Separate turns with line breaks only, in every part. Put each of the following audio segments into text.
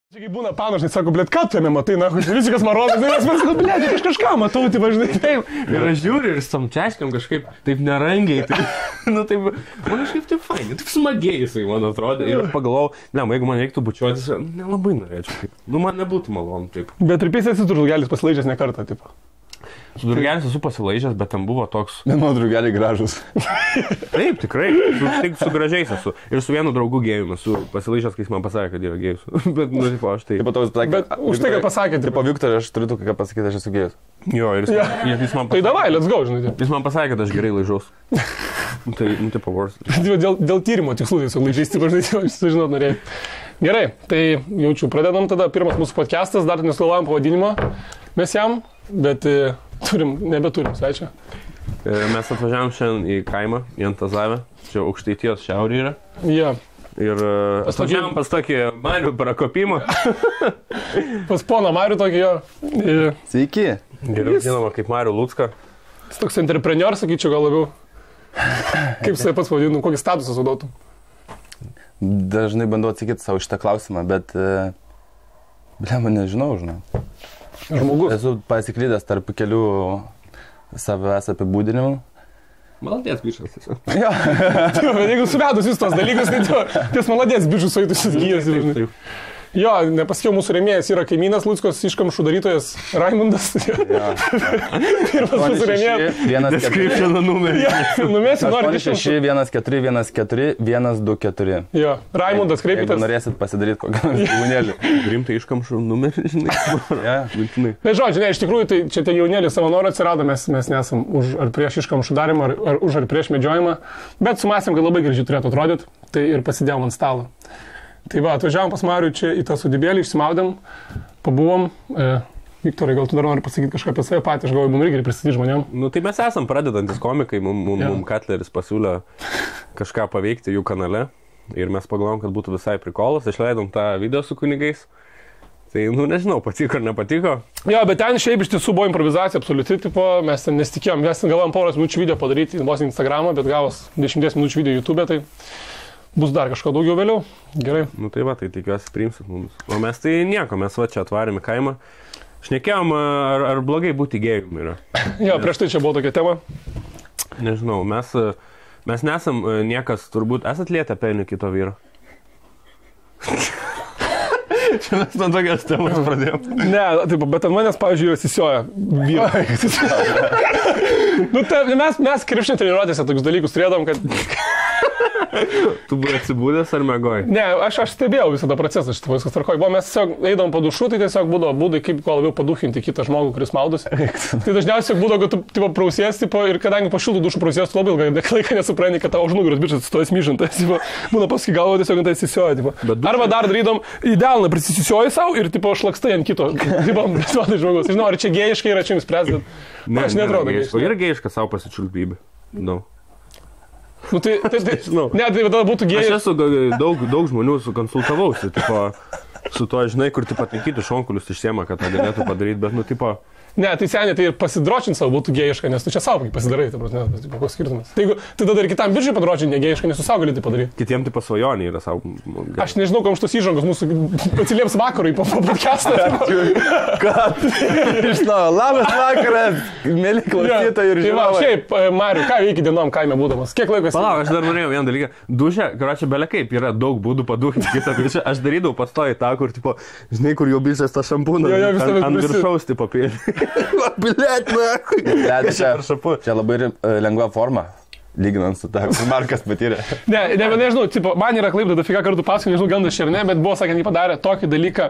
Čia kaip būna panašai, sako, blėt, ką tu jame matai, na, visikas marodas, nes man sako, blėt, aš kažką matau, tai važinai taip.
Ir aš žiūriu ir samčiaškiam kažkaip taip nerangiai, taip, nu taip, man kažkaip taip fainai, taip smagiai jisai, man atrodo. Ir aš pagalvojau, ne, jeigu man reiktų bučiuotis, nelabai norėčiau, taip, nu man nebūtų malonu, taip.
Bet ir pėsės esi drugelis pasilaižęs ne kartą, taip.
Su drugelis esu pasilaižęs, bet ten buvo toks...
Ne, mano drugeliai gražus.
Taip, tikrai, tik su gražiais esu. Ir su vienu draugu gėjum esu pasilaižęs, kai jis man pasakė, kad yra gėjus. Bet, nu, tipo, aš tai...
Bet už tai, kad pasakė,
tipo, Viktorai, aš turiu ką pasakyti, aš esu gėjus.
Jo, ir jis man pasakė...
Tai davai, let's go, žinai.
Jis man pasakė, kad aš gerai laižaus. Tai, nu, tipo, vors.
Dėl tyrimo tikslų tiesiog laižais, tipo, žinai, sužinot norėjai. Gerai, tai jaučiu, pradedam tada. Pirmas mūsų podcastas, dar nesugalvojam pavadinimo mes jam, bet nebeturim svečio.
Mes atvažiavom šiandien į kaimą, į Antazavę, čia Aukštaitijos šiaurė yra.
Jo.
Ir atvažiavom pas tokį Marių prakopimą.
Pas poną Marių tokį jo.
Sveiki.
Geriau žinoma kaip Marių Lucką.
Jis toks entrepreneur, sakyčiau, gal labiau. Kaip jisai pats pavadinu, kokį statusą sudotų?
Dažnai bandau atsakyti savo šitą klausimą, bet... Blema, nežinau, žinau.
Žmogus.
Esu pasiklydęs tarp kelių savęs apibūdinimų.
Maladės bišas tiesiog.
Jo.
Bet jeigu suvedus jūs tos dalykus, tai ties maladės bišus suėtusis gyjas. Jo, nepasakiau, mūsų rėmėjas yra kaimynas Luckos iškamšų darytojas Raimundas. Pirmas mūsų rėmėjas.
Description numerį.
Numėsim, nori
614141224.
Jo, Raimundas, kreipkitės.
Jeigu norėsit pasidaryti kokią jaunėlį.
Rimtai iškamšų numerį, žinai.
Na, žodžiu, ne, iš tikrųjų, tai čia tie jaunėliai savanoriai atsirado, mes nesam už ar prieš iškamšų darimą, ar už ar prieš medžiojimą, bet sumąstėm, kad labai gražiai turėtų atrodyti, tai ir pasidėjom ant stalo. Tai va, atvažiavom pas Marių čia į tą sodybėlį, išsimaudėm, pabuvom. Viktorai, gal tu dar nori pasakyti kažką apie save patį, aš galvoju, mums reikia pristatyti žmonėm.
Nu tai mes esam pradedantis komikai, mums Katleris pasiūlė kažką paveikti jų kanale ir mes pagalvom, kad būtų visai prikolas, išleidom tą video su kunigais. Tai, nu nežinau, patiko ar nepatiko. Jo, bet ten šiaip iš tiesų buvo improvizacija absoliuti, tipo, mes ten nesitikėjom, mes ten galvojom poros minučių video padaryti vos Instagramą, bet gavos 10 minučių video YouTube, tai bus dar kažko daugiau vėliau. Gerai. Nu tai va, tai tikiuosi priimsit mums. O mes tai nieko, mes va čia atvarėm į kaimą. Šnekėjom, ar blogai būti gėjum yra.
Jo, prieš tai čia buvo tokia tema.
Nežinau, mes nesam niekas, turbūt, esat lietę penį kito vyro. Čia mes nuo tokios temos pradėjom.
Ne, taip, bet ant manęs, pavyzdžiui, atsisioja vyrai. Nu, mes krepšinio treniruotėse tokius dalykus turėdom, kad...
Tu buvai atsibūdęs ar mėgoj?
Ne, aš stebėjau visą tą procesą, šitą viskas tvarkoj. Mes tiesiog eidom padušu, tai tiesiog būdavo būdai, kaip kuo labiau paduchinti kitą žmogų, kuris maudosi. Tai dažniausiai būdavo, kad tu prausies, ir kadangi po šiltų dušų prausies, tu labai ilgą laiką nesupranti, kad tavo už nugaros bičas stojas myžantas. Būna paskui galvo tiesiog ant tai įsisioja. Arba dar darydom idealną, prisisisioji savo ir šlakstai ant kito. Žmogus. Žinau, ar čia gėjiškai yra čia jums spręsti, bet aš netrodo.
Yra gėjiška savo pasičiulpybė. No.
Nu, tai žinau. Ne, tai tada būtų gėjai.
Aš esu daug žmonių sukonsultavausi, tipo, su to, žinai, kur tipo taikyti šonkulius išsiema, kad tą galėtų padaryti, bet, nu, tipo...
Ne, tai seniai, tai pasidročinti savo būtų gėjiška, nes tu čia savo pasidarai, tai koks skirtumas. Tai tada ir kitam biržai padročinti negėjiška, nes tu savo gali tai padaryti.
Kitiem tai pasvajonė yra savo...
Aš nežinau, kam šitos įžangos mūsų atsilieps vakarui po podcastą.
Kad? Žinau, labas vakaras, mėly klausytojai ir žiūrovai.
Šiaip, Mariu, ką veiki dienom kaime būdamas? Kiek laiko esi?
Palauk, aš dar norėjau vieną dalyką. Dušė, karočią, belia kaip, yra daug būdų paduhinti kitą biržą. Aš darydavau pastoji tą, kur, tipo, žinai, kur jau biržas tą šampūną ant viršaus, tipo, pėlį. Bilėt, čia
labai lengva forma, lyginant su tą, kur Markas patyrė.
Nežinau, man yra klaipda dafika kartų paskui, nežinau, gandas čia ar ne, bet buvo, sakant, jį padarė tokį dalyką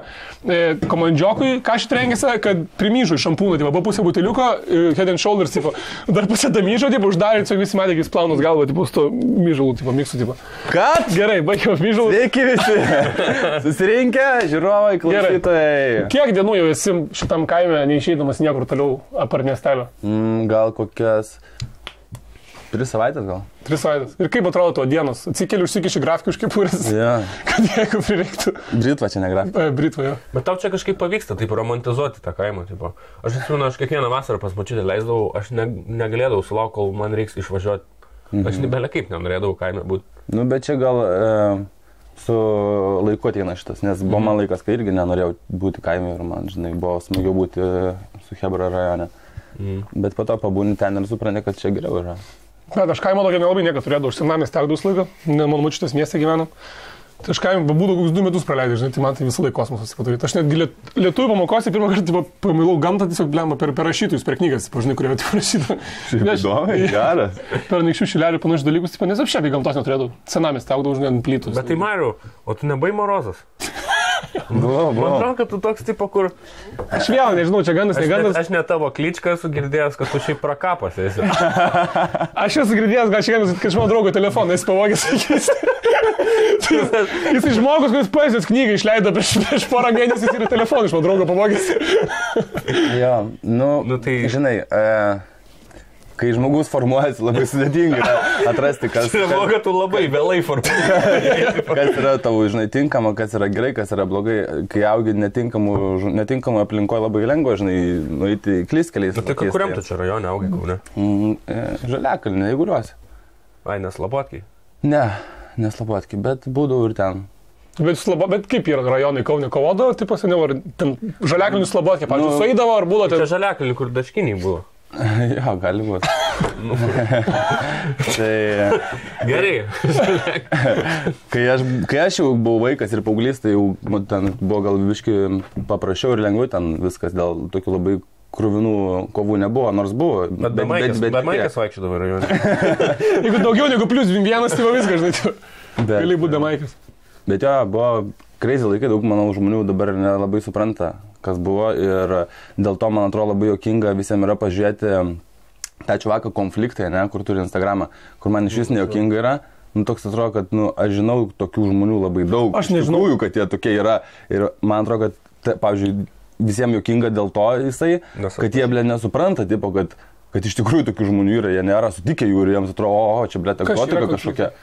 komandžiokui, ką šit rengėsi, kad primyžo į šampūną, buvo pusė buteliuko, head and shoulders, dar pusė damyžo, uždarė, tiesiog visi matė, kaip plaunus galva, su to myžalų, miksų.
Kad?
Gerai, baigiau myžalų.
Sveiki visi. Susirinkę, žiūrovai, klausytojai.
Kiek dienų jau esi šitam kaime, neišeidamas niekur toliau apart miestelio?
Gal kokias 3 savaitės gal.
3 savaitės. Ir kaip atrodo tavo dienos? Atsikeli, užsikiši grafikų iš kepurės.
Ja.
Kad jeigu prireiktų.
Britva čia ne grafika.
Britva, jo.
Bet tau čia kažkaip pavyksta, taip, romantizuoti tą kaimą, tipo. Aš atsimenu, aš kiekvieną vasarą pas močiutę leisdavau, aš negalėdavau sulaukti, kol man reiks išvažiuoti. Aš belia kaip nenorėdavau kaime būti.
Nu, bet čia gal su laiku ateina šitas, nes buvo man laikas, kai irgi nenorėjau būti kaime ir man, žinai, buvo smagiau būti su chebra rajone. Bet po to pabūni ten ir supranti, kad čia geriau yra.
Bet aš kaimo tokia nelabai niekad turėjau, aš senamės tekdus laiką, mano močiutės mieste gyvenam. Tai aš kaime būdų kokius 2 metus praleidžiu, žinai, tai man tai visą laiką kosmosas padaryti. Aš netgi lietuvių pamokose pirmą kartą pamilau gamtą tiesiog blemą per rašytojus, per knygas, žinai, kurie rašyta.
Įdomu, geras.
Per Anykščių Šilelį panašius dalykus, nes aš šiaip gamtos neturėdavau. Senamės tekdavau, žinai, ant plytus.
Bet tai Mariau, o tu nebai morozas?
Buvo.
Man atrodo, kad tu toks tipo, kur...
Aš vėl nežinau, čia gandas, negandas.
Aš ne tavo kličką esu girdėjęs, kad tu šiaip prakapas esi.
Aš esu girdėjęs, gal šiandien, kad iš mano draugo telefoną esi pavogęs. Jis žmogus, kuris poezijos knygą išleido prieš porą mėnesių ir telefoną iš mano draugo pavogęs.
Jo, nu tai žinai, kai žmogus formuojasi, labai sudėtinga atrasti, kas...
Tai buvo, kad tu labai vėlai formuojasi.
Kas yra tavo, žinai, tinkama, kas yra gerai, kas yra blogai. Kai augi netinkamų aplinkoje labai lengva, žinai, nueiti klyskeliais.
Tai kuriam tu čia rajone augai, Kaune?
Žaliakalnė, Eiguliuose.
Ai, neslabotkiai?
Ne, neslabotkiai, bet būdavau ir ten.
Bet kaip yra rajonai Kaune kovodavo, tai paseniau, ar ten Žaliakalnių slabotkiai, pavyzdžiui, sueidavo, ar buvo ten...
Čia Žaliakalnių, kur daškiniai buvo.
Jo, gali būti. Tai...
Gerai.
Kai aš jau buvau vaikas ir paauglys, tai jau ten buvo gal biški paprasčiau ir lengviau, ten viskas dėl tokių labai krūvinų kovų nebuvo, nors buvo.
Bet Maikas vaikščiodavo rajone.
Jeigu daugiau negu +1, tai viskas, žinai, gali būti Maikas.
Bet jo, buvo crazy laikai, daug, manau, žmonių dabar nelabai supranta, kas buvo ir dėl to, man atrodo, labai jokinga visiems yra pažiūrėti tą čuvaką konfliktą, ne, kur turi Instagramą, kur man iš vis nejokinga yra. Toks atrodo, kad aš žinau tokių žmonių labai daug.
Aš nežinau,
kad jie tokie yra. Ir man atrodo, kad, pavyzdžiui, visiems jokinga dėl to jisai, kad jie, nesupranta, tipo, kad iš tikrųjų tokių žmonių yra, jie nėra sutikę jų ir jiems atrodo, čia, egzotika kažkokia.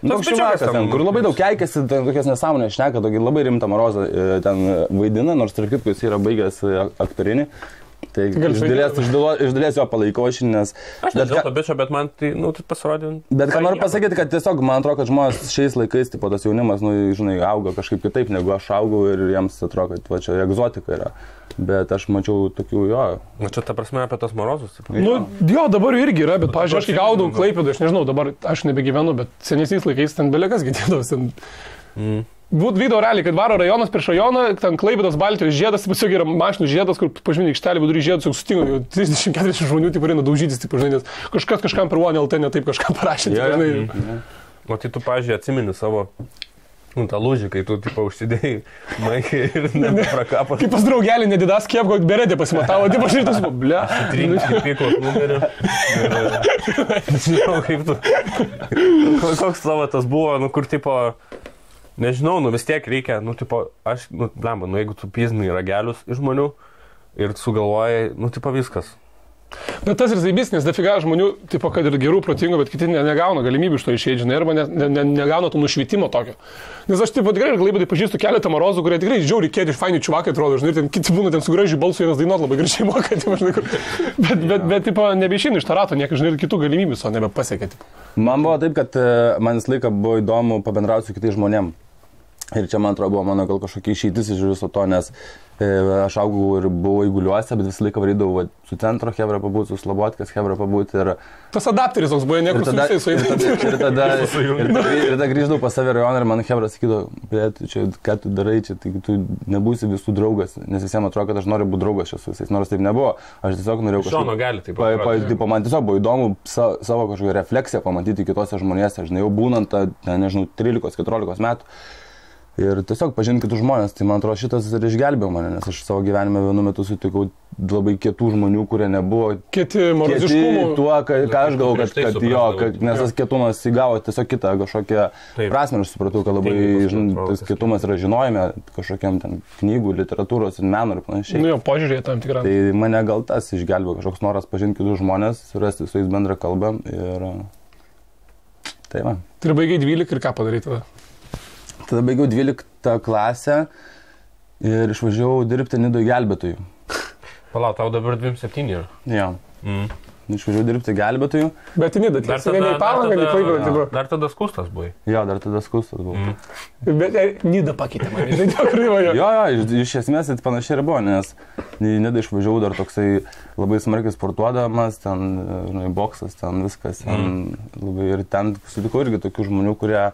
Toks šiuvakas ten, kur labai daug keikėsi, tokias nesąmonės šneka, tokį labai rimtą Marozą ten vaidina, nors tarp kitko jis yra baigęs aktorinį. Tai iš dalies jo palaikau aš, nes...
Aš nežinau to bičio, bet man tai, tai pasirodė...
Bet ką noriu pasakyti, kad tiesiog man atrodo, kad žmonės šiais laikais, tipo, tas jaunimas, žinai, auga kažkaip kitaip, negu aš augau ir jiems atrodo, kad čia egzotika yra. Bet aš mačiau tokių, jo.
Na čia ta prasme apie tos Marozus?
Jo, dabar irgi yra, bet, pavyzdžiui, aš kai gaudau Klaipėdą, aš nežinau, dabar aš nebegyvenu, bet senesniais laikais ten belekas girdėdavos. Video realiai, kad varo rajonas prieš rajoną, ten Klaipėdos Baltijos žiedas, tiesiog yra mašinų žiedas, kur pažymė aikštelį vidury žiedus, jau sutinka, 30-40 žmonių taip eina daužytis, taip, žinai, nes kažkam per OneLT ne taip kažkam parašė.
O tai tu, pavyzdžiui, atsimeni savo tą lūžį, kai tu, tipo, užsidėjai Maikai ir neprakapas.
Kaip pas draugelį nedidas kiepko, beredė pasimatavo, tipo, aš ir tas, ble.
Trinkai pykos numerį. Nežinau, kaip tu. Koks savo tas buvo, kur, tipo, nežinau, vis tiek reikia, tipo, aš, blemba, jeigu tu piznai ragelius iš žmonių ir sugalvojai, tipo, viskas.
Bet tas ir zaibys, nes dafiga žmonių, tipo, kad ir gerų, protingų, bet kiti negauna galimybių iš to išeiti, žinai, arba negauna to nušvitimo tokio. Nes aš, tipo, tikrai ir Klaipėdai pažįstu keletą Marozų, kurie tikrai žiauri kėdė iš fainių čiuvakai atrodo, žinai, ten kiti būna ten su gražiu balsu, vienas dainuot labai gražiai moka, tipo, žinai, bet, tipo, nebeišeina iš to rato, niekai, žinai, ir kitų galimybių so nebepasiekia, tipo.
Man buvo taip, kad man visą laiką buvo įdomu pabendrauti su kitais žmonėm. Ir čia, man atrodo, buvo mano gal kažkokia išeitis iš viso to, nes aš augau ir buvau Eiguliuose, bet visą laiką varydavau su centro hebra pabūti, su Slobodkės hebra pabūti. Ir...
Tas adapteris toks buvo, niekur su visais suėdė.
Ir tada grįždavau pas save rajoną ir man hebra sakydavo, bet čia, ką tu darai čia, tai tu nebūsi visų draugas, nes visiems atrodo, kad aš noriu būti draugas čia su visais, nors taip nebuvo. Aš tiesiog norėjau kažką...
Šono gali taip.
Man tiesiog buvo įdomu savo kažkokią refleksiją pamatyti kitose žmonėse, žinai, jau būnant, nežinau, 13-14 metų. Ir tiesiog pažinti kitus žmonės, tai man atrodo šitas ir išgelbėjo mane, nes aš savo gyvenime vienu metu sutikau labai kietų žmonių, kurie nebuvo
kieti
tuo, ką aš galvoju, kad jo, nes tas kietumas įgavo tiesiog kitą kažkokią prasmę, aš supratau, kad labai tas kietumas yra žinojime kažkokiam ten knygų, literatūros ir meno ir panašiai.
Nu jo, požiūrėje tam tikrą.
Tai mane gal tas išgelbėjo, kažkoks noras pažinti kitus žmonės, surasti su jais bendrą kalbą ir tai va.
Tai baigiai 12 ir ką padaryti tada?
Tada baigiau 12 klasę ir išvažiavau dirbti Nidoje gelbėtojų.
Palauk, tau dabar 27 yra?
Jo. išvažiavau dirbti gelbėtojų.
Bet į Nidą, tiesiog ne į Palangą, ne į Klaipėdą.
Dar tada skustas buvai.
Jo, dar tada skustas buvau.
Bet Nidą pakeitė mane, žinai, dėl kryvojo.
Jo, iš esmės tai panašiai ir buvo, nes į Nidą išvažiavau dar toksai labai smarkiai sportuodamas, ten, žinai, boksas, ten viskas. Ten, labai, ir ten sutikau irgi tokių žmonių, kurie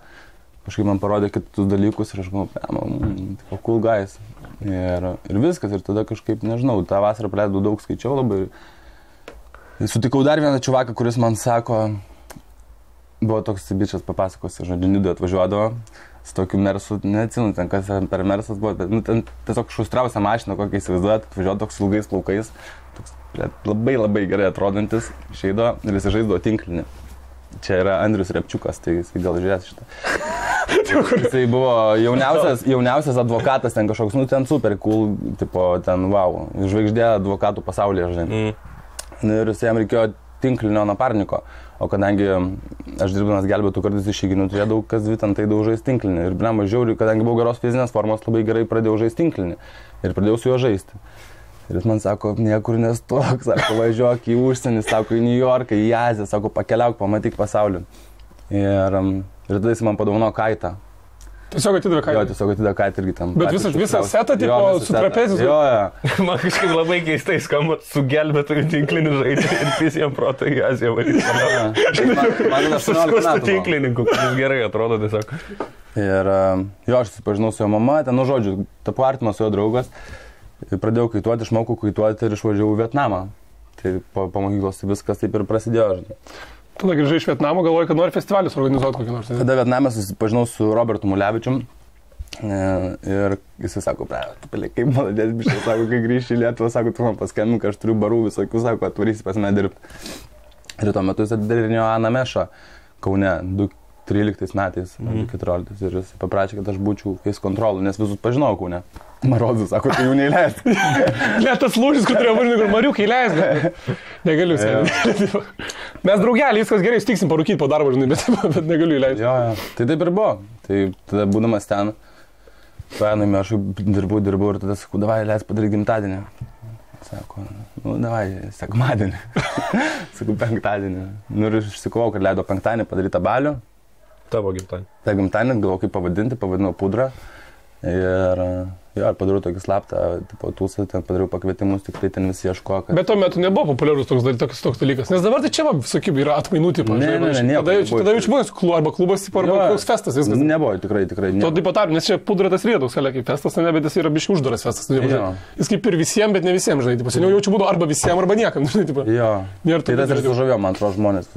kažkaip man parodė kitus dalykus ir aš galvoju, cool guys. Ir viskas, ir tada kažkaip, nežinau, tą vasarą praleidau daug, skaičiau labai. Sutikau dar vieną čuvaką, kuris man sako, buvo toks bičias papasakos, žodžiu, Nidoje atvažiuodavo su tokiu mersu, neatsimenu, ten kas per mersas buvo, bet ten tiesiog šustriausia mašina, kokią įsivaizduojat, atvažiuodavo toks ilgais plaukais, toks labai gerai atrodantis, išeido ir jis žaisdavo tinklinį. Čia yra Andrius Repčiukas, tai jis gal žiūrės šitą. Jisai buvo jauniausias advokatas, ten kažkoks, ten super cool, tipo, ten wow, žvaigždė advokatų pasaulyje, žinai. Ir jam reikėjo tinklinio naparniko, o kadangi aš dirbdamas gelbėtų kartais išeiginių, turėdavau kas dvi ten tai žaisti tinklinį. Ir blem, žiauriai, kadangi buvau geros fizinės formos, labai gerai pradėjau žaisti tinklinį ir pradėjau su juo žaisti. Ir jis man sako, niekur nestok, sako, važiuok į užsienį, sako, į New Yorką, į Aziją, sako, pakeliauk, pamatyk pasaulį. Ir tada jis man padovanojo kaitą.
Tiesiog atidavė kaitą?
Jo, tiesiog atidavė kaitą irgi tam.
Bet visą setą, tipo, su trapezis?
Jo.
Man kažkaip labai keistai skamba su gelbėtojų tinkliniu žaidžiu ir visiems proto į Aziją varyti.
Man 18 metų.
Tinklininkų, kuris gerai atrodo tiesiog.
Ir jo, aš susipažinau su jo mama, ten, žodžiu, tapu artimas su jo draugas. Pradėjau kaituoti, išmokau kaituoti ir išvažiavau į Vietnamą. Tai po mokyklos viskas taip ir prasidėjo, žinai.
Tada grįžai iš Vietnamo, galvoju, kad nori festivalius organizuoti kokį nors.
Tada Vietname susipažinau su Robertu Mulevičium ir jisai sako, kaip maladės biškai, sako, kai grįžti į Lietuvą, sako, tu man paskambink, aš turiu barų visokių, sako, atvarysi pas mane dirbti. Ir tuo metu jis atidarinėjo Ana Mešą Kaune 2013 metais, 2014 ir jis paprašė, kad aš būčiau case control, nes visus pažinau Kaune. Marodus, sako, tai jų neįleist.
Net tas lūžis, kur turėjo važiuoti, kur Mariukai įleist. Negaliu sėdėti. Mes draugelį, viskas gerai, stiksim parūkyti po darbo, žinai, bet negaliu įleisti.
Jo. Tai taip ir buvo. Tai tada būdamas ten, paėmėme, aš dirbau ir tada sakau, davai, leis padaryti gimtadienį. Sako, davai, sekmadienį. Sakau, penktadienį. Ir aš išsikovau, kad leido penktadienį padaryti balių.
Tavo gimtadienį.
Ta gimtadienį, galvoju, kaip pavadinti, pavadinau Pudrą. Ir padariau tokį slaptą, tipo, tūsą, ten padariau pakvietimus, tik tai ten visi ieško, kad...
Bet tuo metu nebuvo populiarus toks dalykas, nes dabar tai čia, visokiai, yra atmainų, tipo, tada jau čia buvo arba klubas, tipo, arba koks festas, viskas.
Nebuvo, tikrai.
To taip pat, nes čia Pudra tas yra toks, kaip festas, ne, bet jis yra biškai uždaras festas. Jis kaip ir visiems, bet ne visiems, žinai, tipo, seniau jaučiu būdų arba visiems, arba niekam, žinai, tipo.
Jo, tai tas ir sužavėjo, man atrodo, žmonės.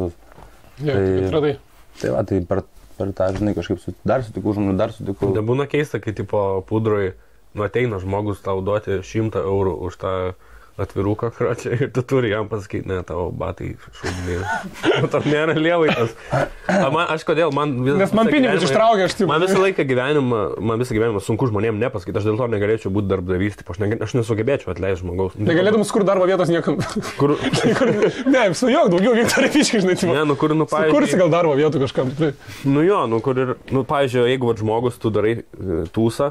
Tai va, tai per tą, žinai, kažkaip dar sutikau žmonių, dar sutikau.
Nebūna keista, kai tipo Pudroj ateina žmogus tau duoti 100 eurų už tą atviruką kračią ir tu turi jam pasakyti, ne, tavo batai šūdinė. Tam nėra lievaitas. Aš kodėl,
nes man pinigus ištraukia, aš taip.
Man visą gyvenimą sunku žmonėm nepasakyti, aš dėl to negalėčiau būti darbdavys, aš nesugebėčiau atleisti žmogaus.
Negalėtum skur darbo vietos niekam. Ne, sujok, daugiau Viktorija Fiškai, žinai, tipo.
Ne, pavyzdžiui.
Sukursi gal darbo vietų kažkam, tikrai.
Pavyzdžiui, jeigu žmogus tu darai tūsą,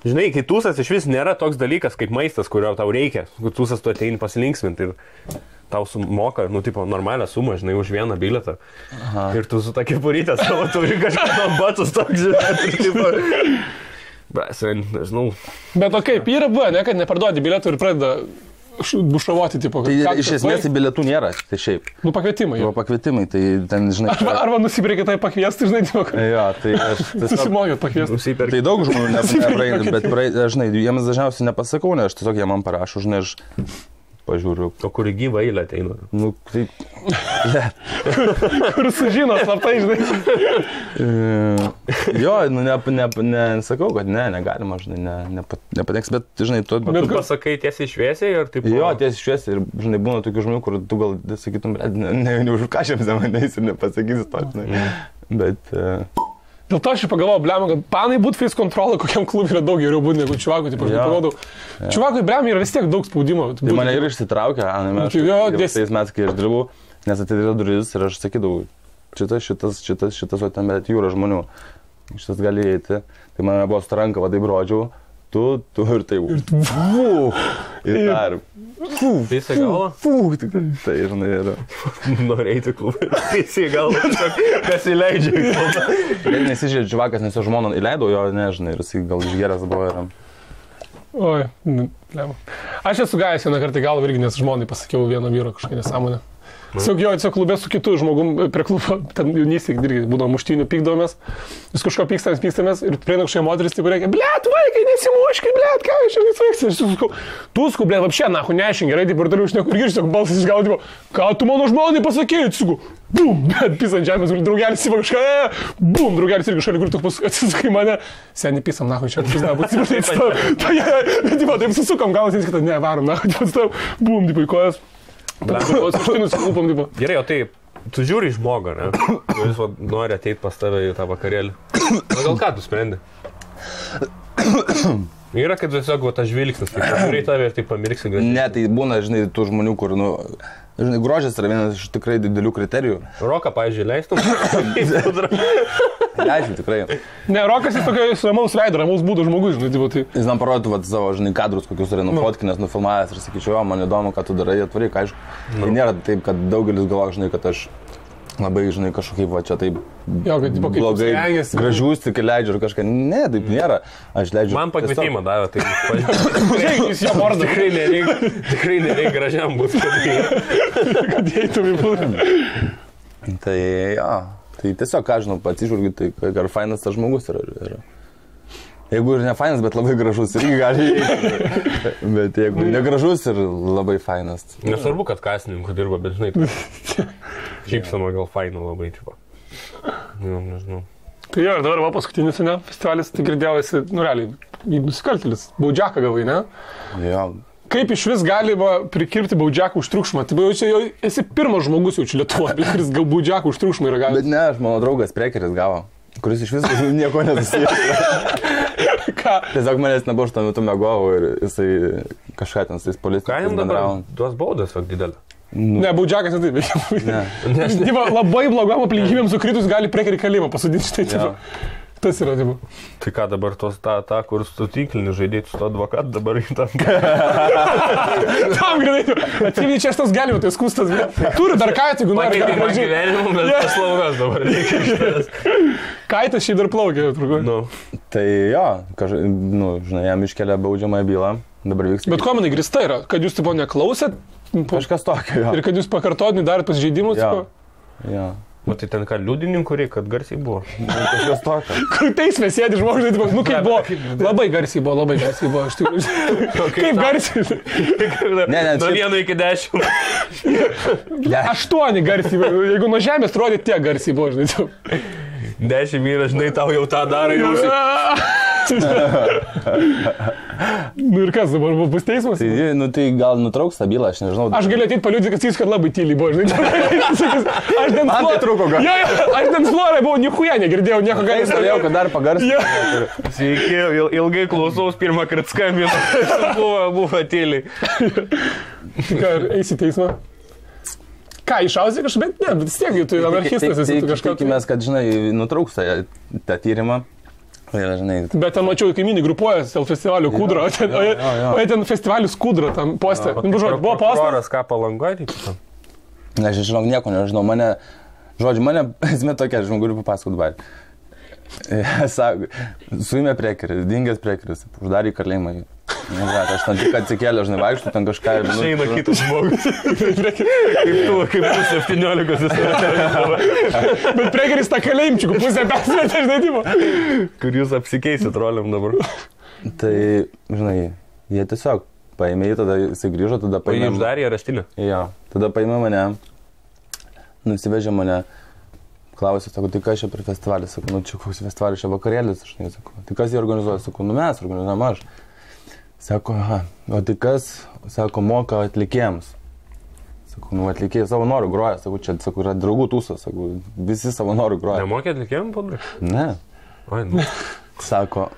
žinai, kai tūsas iš vis nėra toks dalykas kaip maistas, kurio tau reikia. Tūsas tu ateini pasilinksminti ir tau sumoka, normalią sumą, žinai, už vieną bilietą. Aha. Ir tu su ta kepurytė savo turi kažką batus toks, žinai. Nežinau.
Bet o kaip, yra buvo, ne, kad neparduodi bilietų ir pradeda bušravoti, tipo.
Tai iš esmės bilietų nėra, tai šiaip.
Pakvietimai.
Pakvietimai, tai ten, žinai.
Arba nusipirkė tai pakviesti, žinai, tipo.
Jo, tai aš
tiesiog... Susimokėt pakviesti.
Tai daug žmonių nepraeina, bet, žinai, jiems dažniausiai nepasakau, ne, aš tiesiog jie man parašo, žinai, aš pažiūriu.
O kur gyva eilė ateina?
Tai...
Kur sužino, slaptai, žinai.
Jo, nesakau, kad negalima, žinai, nepateks, bet, žinai, tu
pasakai tiesiai šviesiai ir taip...
Jo, tiesiai šviesiai ir, žinai, būna tokių žmonių, kur tu gal sakytum, neužkašiam manęs ir nepasakysi to, žinai. Bet...
Dėl to aš pagalvojau, blema, kad panai būt face control kokiam klubui yra daug geriau būti negu čuvakui, taip aš pagalvodau. Čuvakui, blema, yra vis tiek daug spaudimo.
Tai mane ir išsitraukė, Ana, tais metais, kai aš dirbau, nes atidarė duris ir aš sakydavau, šitas, o ten bet jūra žmonių, šitas gali įeiti. Tai mane buvo su ranka, va taip rodžiau, tu ir tai. Ir
Visi galva?
Tai, žinai, yra.
Norėjai klubą. Visi galva, kas įleidžia.
Nesižiūrė dživakas, nes jo žmona įleido jo, nežinai, ir jis gal išgeras buvo ir...
Oi, lema. Aš esu gavęs vieną kartą galvą irgi, nes žmonai pasakiau vieno vyro kažkokią nesąmonę. Tiesiog klube su kitu žmogum prie klubo, ten jaunystėje irgi būdavo muštynių, pykdavomės, vis kažko pykstamės ir prieina kažkokia moteris, taip reikia, blėt, vaikai, nesimuškit, blėt, ką aš čia nesveiksiu, aš sakau, tu sku, blėt, apšė, nahu, nešink, gerai, taip ir toliau išneku, ir išneku balsas išgaudavo, ką tu mano žmonai pasakėjai, sakau, bum, blėt, pys ant žemės, draugelis įva kažką, bum, draugelis irgi šalia, kur tu atsisakai mane, seniai pysam, nahu, čia, taip susukam, galas, ne, varom, nahu, bum, taip, kojas.
Gerai, o tai, tu žiūri į žmogą, ne? Jis nori ateiti pas tave į tą vakarėlį. O gal ką tu sprendi? Yra, kad tiesiog tas žvilgsnis, kai žiūri į tave ir taip pamirksi gražiai.
Ne, tai būna, žinai, tų žmonių, kur, žinai, grožis yra vienas iš tikrai didelių kriterijų.
Roką, pavyzdžiui, leistum?
Leisiu, tikrai.
Ne, Rokas jis tokio ramaus veido, ramaus būdo žmogus, žinai, tai.
Jis man parodytų savo, žinai, kadrus, kokius yra nufotkinęs, nufilmavęs ir sakyčiau, man įdomu, ką tu darai, atvaryk, aišku. Tai nėra taip, kad daugelis galvoja, žinai, kad aš labai, žinai, kažkaip va čia taip blogai, gražius tik leidžiu ir kažką. Ne, taip nėra. Aš leidžiu.
Man pakvietimą davė, tai
jis jo vardą.
Tikrai nereikia gražiam būti,
kad eitum į būdą.
Tai, jo. Tai tiesiog, ką žinau, atsižvelgiu, tai ar fainas tas žmogus yra. Jeigu ir ne fainas, bet labai gražus, irgi gali įeiti. Bet jeigu negražus ir labai fainas.
Nesvarbu, kad kasininkų dirba, bet žinai, šypsama gal faina labai, tipo. Nežinau.
Tai jo, ir dabar va paskutinis, ne, festivalis, tai girdėjau, esi, realiai, nusikaltėlis, baudžiaką gavai, ne?
Jo.
Kaip iš vis galima prikirpti baudžiaką už triukšmą? Tai jau esi pirmas žmogus jau čia Lietuvoje, kuris gal baudžiaką už triukšmą yra gavęs.
Bet ne, aš mano draugas Prekeris gavo, kuris iš vis nieko nesusijęs.
Ką?
Tiesiog manęs nebuvo, aš tuo metu mėgovau ir jisai kažką ten su tais policininkais bendravo.
Tuos baudas, didelį.
Ne, baudžiakas netaip veikia. Ne. Labai blogom aplinkybėm sukritus gali Prekerį kalėjimą pasodinti štai tipo. Tas yra, tipo.
Tai ką dabar tos tą, kur su tinklinį žaidėjai su to advokatu dabar į tam.
Tam greitai. Atsimni, čia šitas galima, tai skustas. Turi dar kaitą, jeigu nori.
Pakeitė gyvenimą, bet paslaugas dabar reikia iš tavęs.
Kaitas šiaip dar plaukia, truko.
Tai jo, žinai, jam iškelia baudžiamąją bylą. Dabar vyks.
Bet kuo manai grįsta yra? Kad jūs tipo neklausėt?
Kažkas tokio, jo.
Ir kad jūs pakartotinį darėt pasižeidimus?
Jo.
O tai ten ką, liudininkų reikia, kad garsiai buvo?
Kažkas tokio.
Kur teisme sėdi žmogus, nu kaip buvo, labai garsiai buvo, aš tikiu. Kaip garsiai?
Ne,
nuo 1 iki 10.
8 garsiai, jeigu nuo žemės rodė, tiek garsiai buvo, žinai.
10 vyras, žinai, tau jau tą daro, jau.
Nu ir kas dabar bus teismas?
Tai gal nutrauks tą bylą, aš nežinau.
Aš galiu ateit paliudyti, kad jis kad labai tyliai buvo, žinai. Aš ten
man tai trūko gal.
Aš ten florai buvau, niekuja negirdėjau, nieko gali.
Aš galėjau, kad dar pagarsinti.
Sveiki, ilgai klausaus, pirmą kartą skambinu, buvo tyliai.
Tai ką, eisi teismą? Ką, išausi kažkaip, bet ne, bet vis tiek, tu anarchistas esi kažką.
Tikimės, kad, žinai, nutrauks tą tyrimą.
Bet ten mačiau, kaimynai grupuojas dėl festivalio Kūdro, o ten festivalis Kūdro, tam postė. Buvo postas.
Prokuroras ką Palangoj?
Aš žinau, nieko nežinau, mane esmė tokia, aš galiu papasakoti dabar. Sako, suėmė Prekerį, dingęs Prekeris, uždarė į kalėjimą. Aš ten tik atsikėlė, žinai, vaikštų ten kažką ir...
Išeina kitas žmogus. Kaip tu 17.
Bet Prekeris tą kalėjimčiukų pusę persmetė, žinai, tipo.
Kur jūs apsikeisit roliam dabar?
Tai, žinai, jie tiesiog paėmė jį, tada jisai grįžo, tada paėmė...
O jį uždarė areštinę?
Jo, tada paėmė mane, nusivežė mane, klausė, sako, tai kas čia per festivalį, sako, nu čia koks festivalis, čia vakarėlis, aš nesakau, tai kas jį organizuoja, sako, nu mes organizuojam aš. Sako, aha, o tai kas, sako, moka atlikėjams. Sako, nu atlikėjai savo norų groja, sako, čia, sako, yra draugų tūsas, sako, visi savo norų groja.
Nemokė atlikėjams, padrai?
Ne.
Oi, nu.
Sako,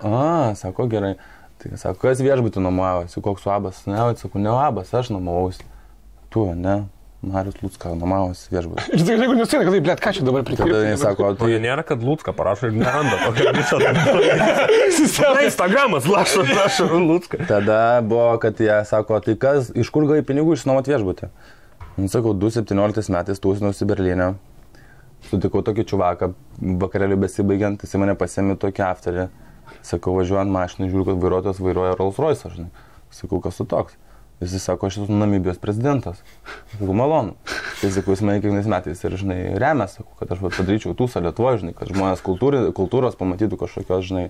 sako, gerai. Tai sako, kas viešbutį nuomojavosi, koks uabas? Ne, sako, ne uabas, aš nuomojausi. Tu, ne. Marius Lucka, nuomavos viešbutis.
Ir tai jeigu nesėdė, kad tai, blėt, ką čia dabar prikirti?
Tada jis sako,
Tai nėra, kad Lucka parašo ir neranda tokio viso. Instagramas lašo Lucka.
Tada buvo, kad jie sako, tai kas, iš kur gai pinigų išsinuomot viešbutį? Sakau, 2017 metais tūsinusi Berlyne. Sutikau tokį čuvaką, vakarėliu besibaigiant, jis mane pasėmė tokį afterį. Sakau, važiuojant mašiną, žiūriu, kad vairuotojas vairuoja Rolls Royce, žinai. Sakau, kas tu toks? Jis sako, aš esu Namibijos prezidentas. Sakau, malonu. Tai sakau, jis mane kiekvienais metais ir, žinai, remia, sakau, kad aš padaryčiau tūsą Lietuvoje, žinai, kad žmonės kultūros pamatytų kažkokios, žinai.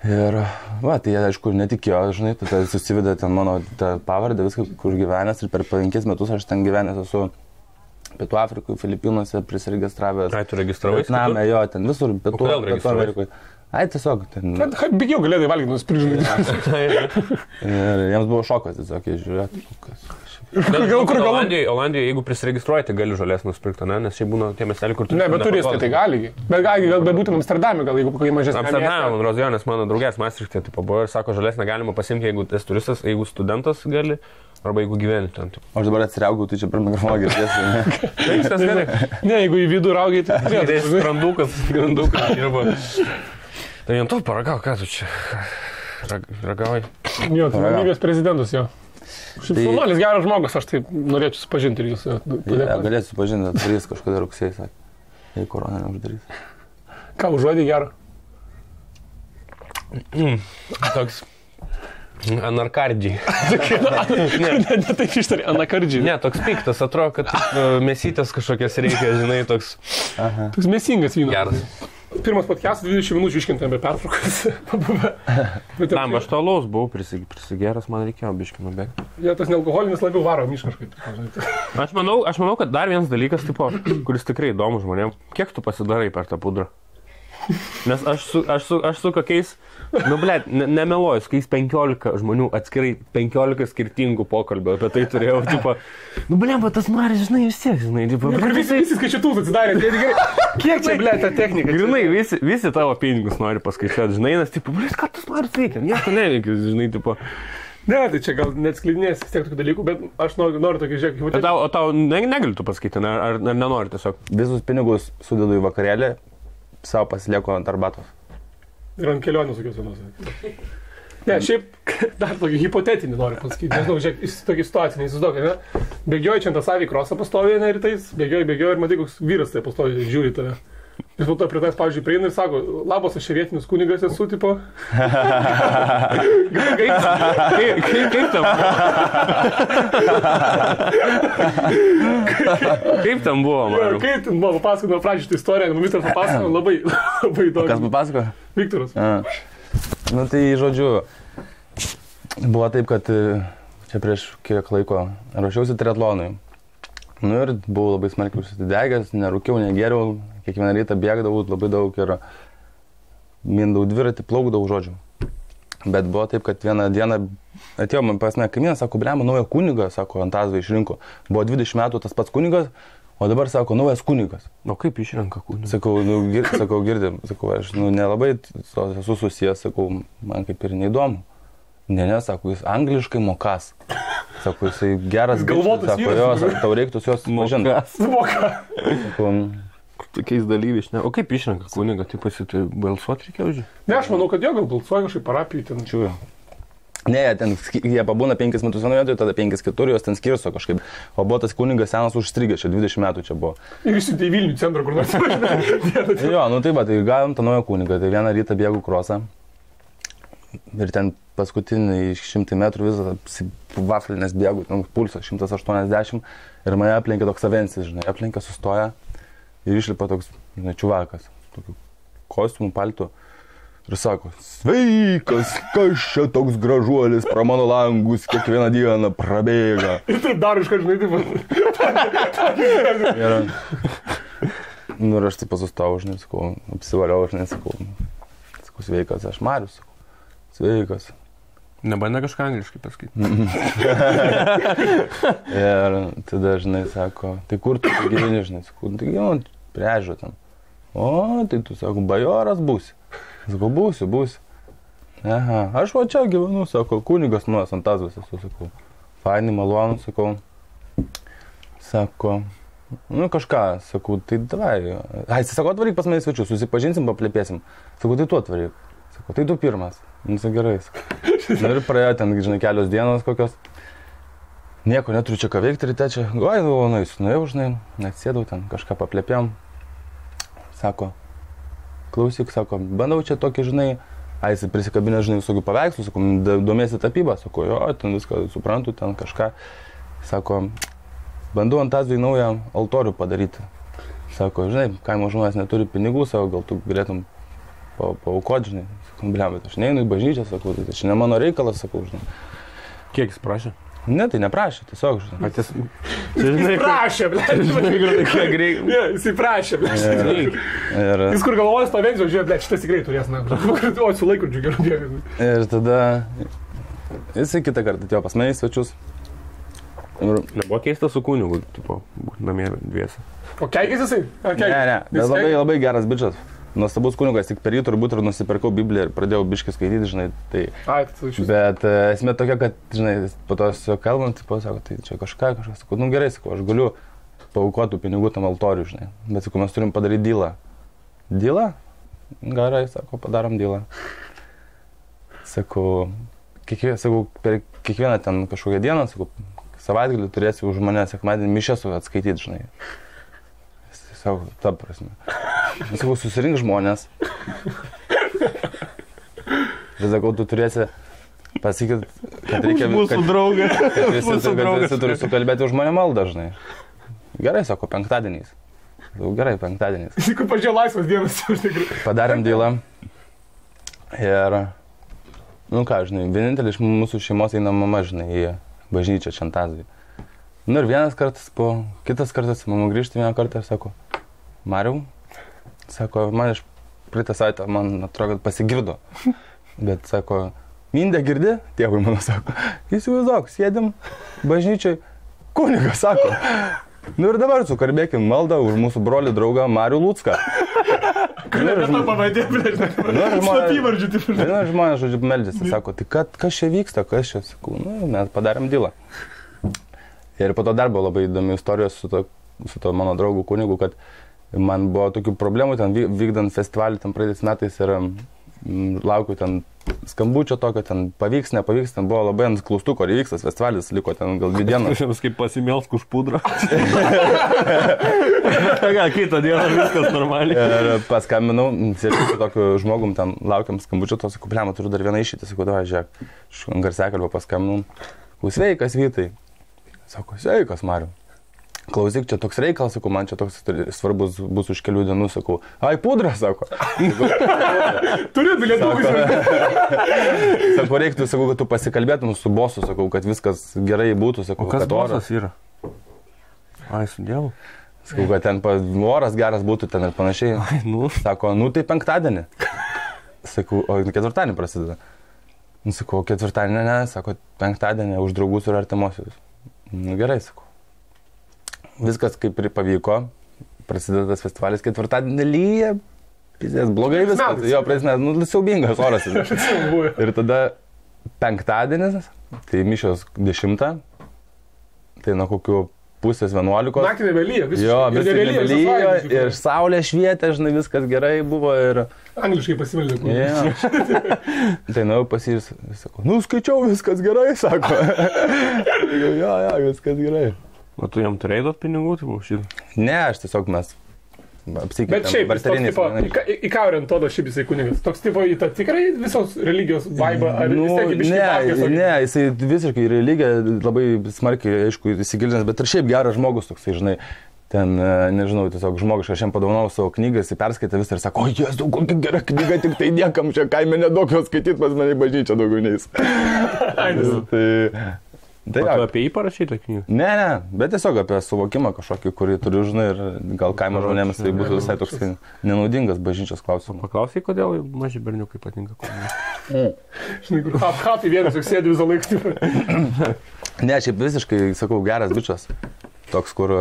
Ir, va, tai jie, aišku, netikėjo, žinai, tada susivedė ten mano pavardę, viską, kur gyvenęs ir per 5 metus aš ten gyvenęs esu Pietų Afrikoje, Filipinuose prisirегistravęs.
Ai, tu registravai?
Vietname, jo, ten visur, Pietų Amerikoje. Ai, tiesiog ten.
Bigiau galėdai valgyti nusipirkti.
Ir jiems buvo šokas, tiesiog, jie žiūrėtų, kas.
Olandijoje, jeigu prisiregistruoji, tai gali žolės nusipirkti, ne? Nes šiaip būna tie miesteliai, kur tu...
Ne, bet turistai tai gali. Bet būtent Amsterdame, gal jeigu kokie mažesni.
Amsterdame, man Rozionės, mano draugės Maastrichte, tai buvo ir sako, žolės negalima pasimti, jeigu esi turistas, jeigu studentas gali, arba jeigu gyveni ten.
Aš dabar atsiriaugau, tai čia per mikrofoną girdėsiu.
Viskas gerai.
Ne, jeigu į vidų raugai, tai...
Skrandukas dirba. Tai jam to paragau, ką tu čia ragauji?
Jo, tai Namibijos prezidentas jo. Šiaip Saunolis geras žmogus, aš tai norėčiau supažinti ir jūs.
Galėsiu supažinti, atvarys kažkada rugsėjai, sakė. Jei korona neuždarys.
Ką, užuodį gerą?
Toks anarkardžiai.
Ne taip ištarė, anarkardžiai.
Ne, toks piktas, atrodo, kad mėsytės kažkokias reikia, žinai, toks...
Toks mėsingas vynas.
Geras.
Pirmas podcastas 20 minučių iškintame pertraukas.
Tam, aš to alaus buvau prisigeras, man reikėjo biškį nubėgti.
Ja, tas nealkoholinis labiau varo miškaškai.
Aš manau, kad dar vienas dalykas, tipo, kuris tikrai įdomu žmonėm, kiek tu pasidarai per tą pudrą? Nes aš su kokiais, nu blėt, nemeluoju, su kokiais 15 žmonių atskirai 15 skirtingų pokalbio apie tai turėjau, tipo, nu blėt, tas Maris, žinai, vis tiek, žinai, tipo,
visi skaičiutus atsidarė, tai gerai, kiek čia, blėt, ta technika?
Grinai, visi tavo pinigus nori paskaičiuoti, žinai, nes, tipo, blėt, ką tas Maris veikia, nieko neveikia, žinai, tipo.
Ne, tai čia gal neatskleidinės vis tiek tokių dalykų, bet aš noriu tokį žiūrėk.
O tau negali tu pasakyti, ar nenori tiesiog?
Visus pinigus sudedu į vakarėlį. Savo pasilieku ant arbatos.
Ir ant kelionės tokios vienos. Ne, šiaip dar tokį hipotetinį noriu pasakyti. Nežinau, žiūrėk, tokį situaciją neįsivaizduok, ne? Bėgioji čia ant savį krosą pastovi, ne, rytais, bėgioji ir matai, koks vyras tai pastovi, žiūri tave. Jis po to prie tas, pavyzdžiui, prieina ir sako, labas, aš čia vietinis kunigas esu, tipo.
Kaip tam buvo, man?
Kaip tam buvo, papasakojau pradžią šitą istoriją, ministras papasakojau, labai įdomu.
Kas papasakojo?
Viktoras.
Nu tai, žodžiu, buvo taip, kad čia prieš kiek laiko ruošiausi triatlonui. Nu ir buvau labai smarkiai užsidegęs, nerūkiau, negėriau, kiekvieną rytą bėgdavau labai daug ir mindau dviratį, plaukdavau, žodžiu. Bet buvo taip, kad vieną dieną atėjo man pas mane kaimynas, sako, blema, naują kunigą, sako, Antazvą išrinko. Buvo 20 metų tas pats kunigas, o dabar, sako, naujas kunigas.
O kaip išrenka kunigą?
Sakau, girdim, sakau, aš nelabai esu susijęs, sakau, man kaip ir neįdomu. Ne, sako, jis angliškai mokas. Sako, jisai geras
galvotas,
sako, jo, tau reiktų jos pažinti.
Moka.
Tokiais dalyviais, ne?
O kaip išrenka kunigą, tai balsuoti reikėjo už jį?
Ne, aš manau, kad jo gal balsuoja kažkaip parapijai ten.
Čiūjo. Ne, jie pabūna 5 metus vienoje vietoje, tada 5 kitur, jos ten skirsto kažkaip. O buvo tas kunigas senas užstrigęs, čia 20 metų čia buvo.
Ir išsiuntė į Vilnių centrą, kur nors.
Jo, nu taip, tai gavom tą naują kunigą, tai vieną rytą bėgu krosą. Ir ten paskutinį 100 metrų visą vaflinės bėgu, pulsas 180 ir mane aplenkė toks avensis, žinai, aplenkė, sustoja ir išlipa toks, žinai, čiuvakas, tokiu kostiumu, paltu ir sako, sveikas, kas čia toks gražuolis pro mano langus kiekvieną dieną prabėga.
Ir taip dar iškart, žinai,
taip. Nu ir aš taip pasustojau, žinai, sakau, apsivaliau, žinai, sakau, sveikas, aš Marius, sakau. Sveikas.
Nebandė kažką angliškai pasakyti.
Ir tada, žinai, sako, tai kur tu gyveni, žinai, sakau, tai gyvenu prie ežero ten. O, tai tu, sako, bajoras būsi. Sakau, būsiu. Aha, aš va čia gyvenu, sako, kunigas nuos Antazvas esu, sakau. Fainai, malonu, sakau. Sako, nu kažką, sakau, tai davai. Ai, jis sako, atvaryk pas mane svečius, susipažinsim, paplėpėsim. Sakau, tai tu atvaryk. Sako, tai tu pirmas. Nu, sakai, gerai. Na ir praėjo ten, žinai, kelios dienos kokios. Nieko neturiu čia ką veikti ryte čia. Oi, nuėjau, žinai, atsėdau ten, kažką paplėpėm. Sako, klausyk, sako, bandau čia tokį, žinai, jis prisikabinę, žinai, visokių paveikslų, sako, domėsi tapybą, sako, jo, ten viską suprantu, ten kažką. Sako, bandau ant Azijai naują altorių padaryti. Sako, žinai, kaimo žmonės neturi pinigų, sako, gal tu galėtum paaukoti, žinai. Sakau, bliam, bet aš neinu į bažnyčią, sakau, tai čia ne mano reikalas, sakau, žinai.
Kiek jis prašė?
Ne, tai neprašė, tiesiog, žinai.
Patys...
Jis prašė, ble. Jis prašė, ble. Jis kur galvojas pavengiau, žiūrėjau, ble, šitas tikrai turės, na. O, su laikrodžiu gerų dėkui.
Ir tada jisai kitą kartą atėjo pas mane į svečius.
Nebuvo keista su kunigu, tipo, namie dviese.
O keikis jisai?
Ne, bet labai geras bičas. Nuostabus kunigas, tik per jį turbūt ir nusipirkau Bibliją ir pradėjau biškį skaityti, žinai, tai... Bet esmė tokia, kad, žinai, po to su kalbant, tipo, sako, tai čia kažką, sakau, nu gerai, sakau, aš galiu paaukoti pinigų tam altoriui, žinai, bet, sakau, mes turim padaryti dylą. Dylą? Gerai, sako, padarom dylą. Sakau, per kiekvieną ten kažkokią dieną, sakau, savaitgalį turėsi už mane sekmadienį mišias atskaityti, žinai. Sakau, ta prasme. Sakau, susirink žmonės. Ir sakau, tu turėsi pasakyti, kad reikia...
Mūsų draugas.
Kad visi turi sukalbėti už mane maldą, žinai. Gerai, sako, penktadieniais. Sakau, gerai, penktadieniais.
Sakau, pažiūrėjau laisvas dienas.
Padarėm dylą. Ir, nu ką, žinai, vienintelį iš mūsų šeimos eina mama, žinai, į bažnyčią Čantazijai. Nu ir kitas kartas mama grįžta vieną kartą ir sako, Mariau, sako, man iš praeitą savaitę, man atrodo, kad pasigirdo. Bet sako, Mindė girdi, tėvui mano sako, įsivaizduok, sėdim bažnyčiai, kunigas sako. Nu ir dabar sukalbėkim maldą už mūsų brolį draugą Marių Lucką. Žmonės, žodžiu, meldžiasi, sako, tai kas čia vyksta, kas čia, sakau, nu, mes padarėm dylą. Ir po to dar buvo labai įdomi istorijos su to mano draugu kunigu, kad man buvo tokių problemų ten vykdant festivalį ten praeitais metais ir laukiu ten skambučio tokio, ten pavyks, nepavyks, ten buvo labai ant klaustuko, ar įvyks tas festivalis, liko ten gal 2 dienos.
Aš kaip pasimėlsk už pudrą. Kitą dieną viskas normaliai.
Ir paskambinau, sėdžiu su tokiu žmogum, ten laukiam skambučio, to sakau, blema, turiu dar vieną išeitį, sakau, davai, žiūrėk, aš garsiakalbą paskambinau, sveikas Vytai. Sako, sveikas, Mariu. Klausyk, čia toks reikalas, sakau, man čia toks svarbus bus už kelių dienų, sakau, ai, pudra, sako.
Turiu bilietų.
Sako, reiktų, sakau, kad tu pasikalbėtum su bosu, sakau, kad viskas gerai būtų, sakau,
kad bosas yra? Ai, su Dievu.
Sakau, kad ten oras geras būtų ten ir panašiai.
Ai, nu.
Sako, nu tai penktadienį. Sakau, o ketvirtadienį prasideda. Sakau, ketvirtadienį ne, sako, penktadienį už draugus ir artimuosius. Nu gerai, sakau. Viskas kaip ir pavyko, prasideda tas festivalis, ketvirtadienį lyja, blogai viskas, jo, prasideda, nu, siaubingas oras. Ir tada penktadienis, tai mišios 10, tai nuo kokių 10:30.
Naktį nebelyja, visiškai.
Jo, visiškai nebelyja ir saulė švietė, žinai, viskas gerai buvo ir...
Angliškai pasimeldė.
Tai nuėjau pas jį ir sako, nu skaičiau, viskas gerai, sako. Jo, viskas gerai.
O tu jam turėjai duoti pinigų, tai buvo šitą?
Ne, aš tiesiog mes apsikeitėm.
Bet šiaip, į ką orientuodo šiaip jisai kunigas? Toks tipo į tą tikrai visos religijos vaibą, ar vis tiek į biškį pakės?
Ne, jisai visiškai religiją labai smarkiai, aišku, įsigilinęs, bet ir šiaip geras žmogus toksai, žinai, ten, nežinau, tiesiog žmogiškai, aš jam padovanau savo knygą, jisai perskaitė visą ir sako, o Jėzau, kokia gera knyga, tik tai niekam čia kaime nedaug jos skaityti, pas mane į bažnyčią daugiau neis.
Tai tu apie jį parašai tą knygą?
Ne, bet tiesiog apie suvokimą kažkokį, kurį turiu, žinai, ir gal kaimo žmonėms tai būtų visai toks nenaudingas bažnyčios klausimas.
Paklausai, kodėl maži berniukai patinka kunigai?
Žinai, kur apkatai vienas, juk sėdi visą laiką.
Ne, šiaip visiškai, sakau, geras bičas. Toks, kur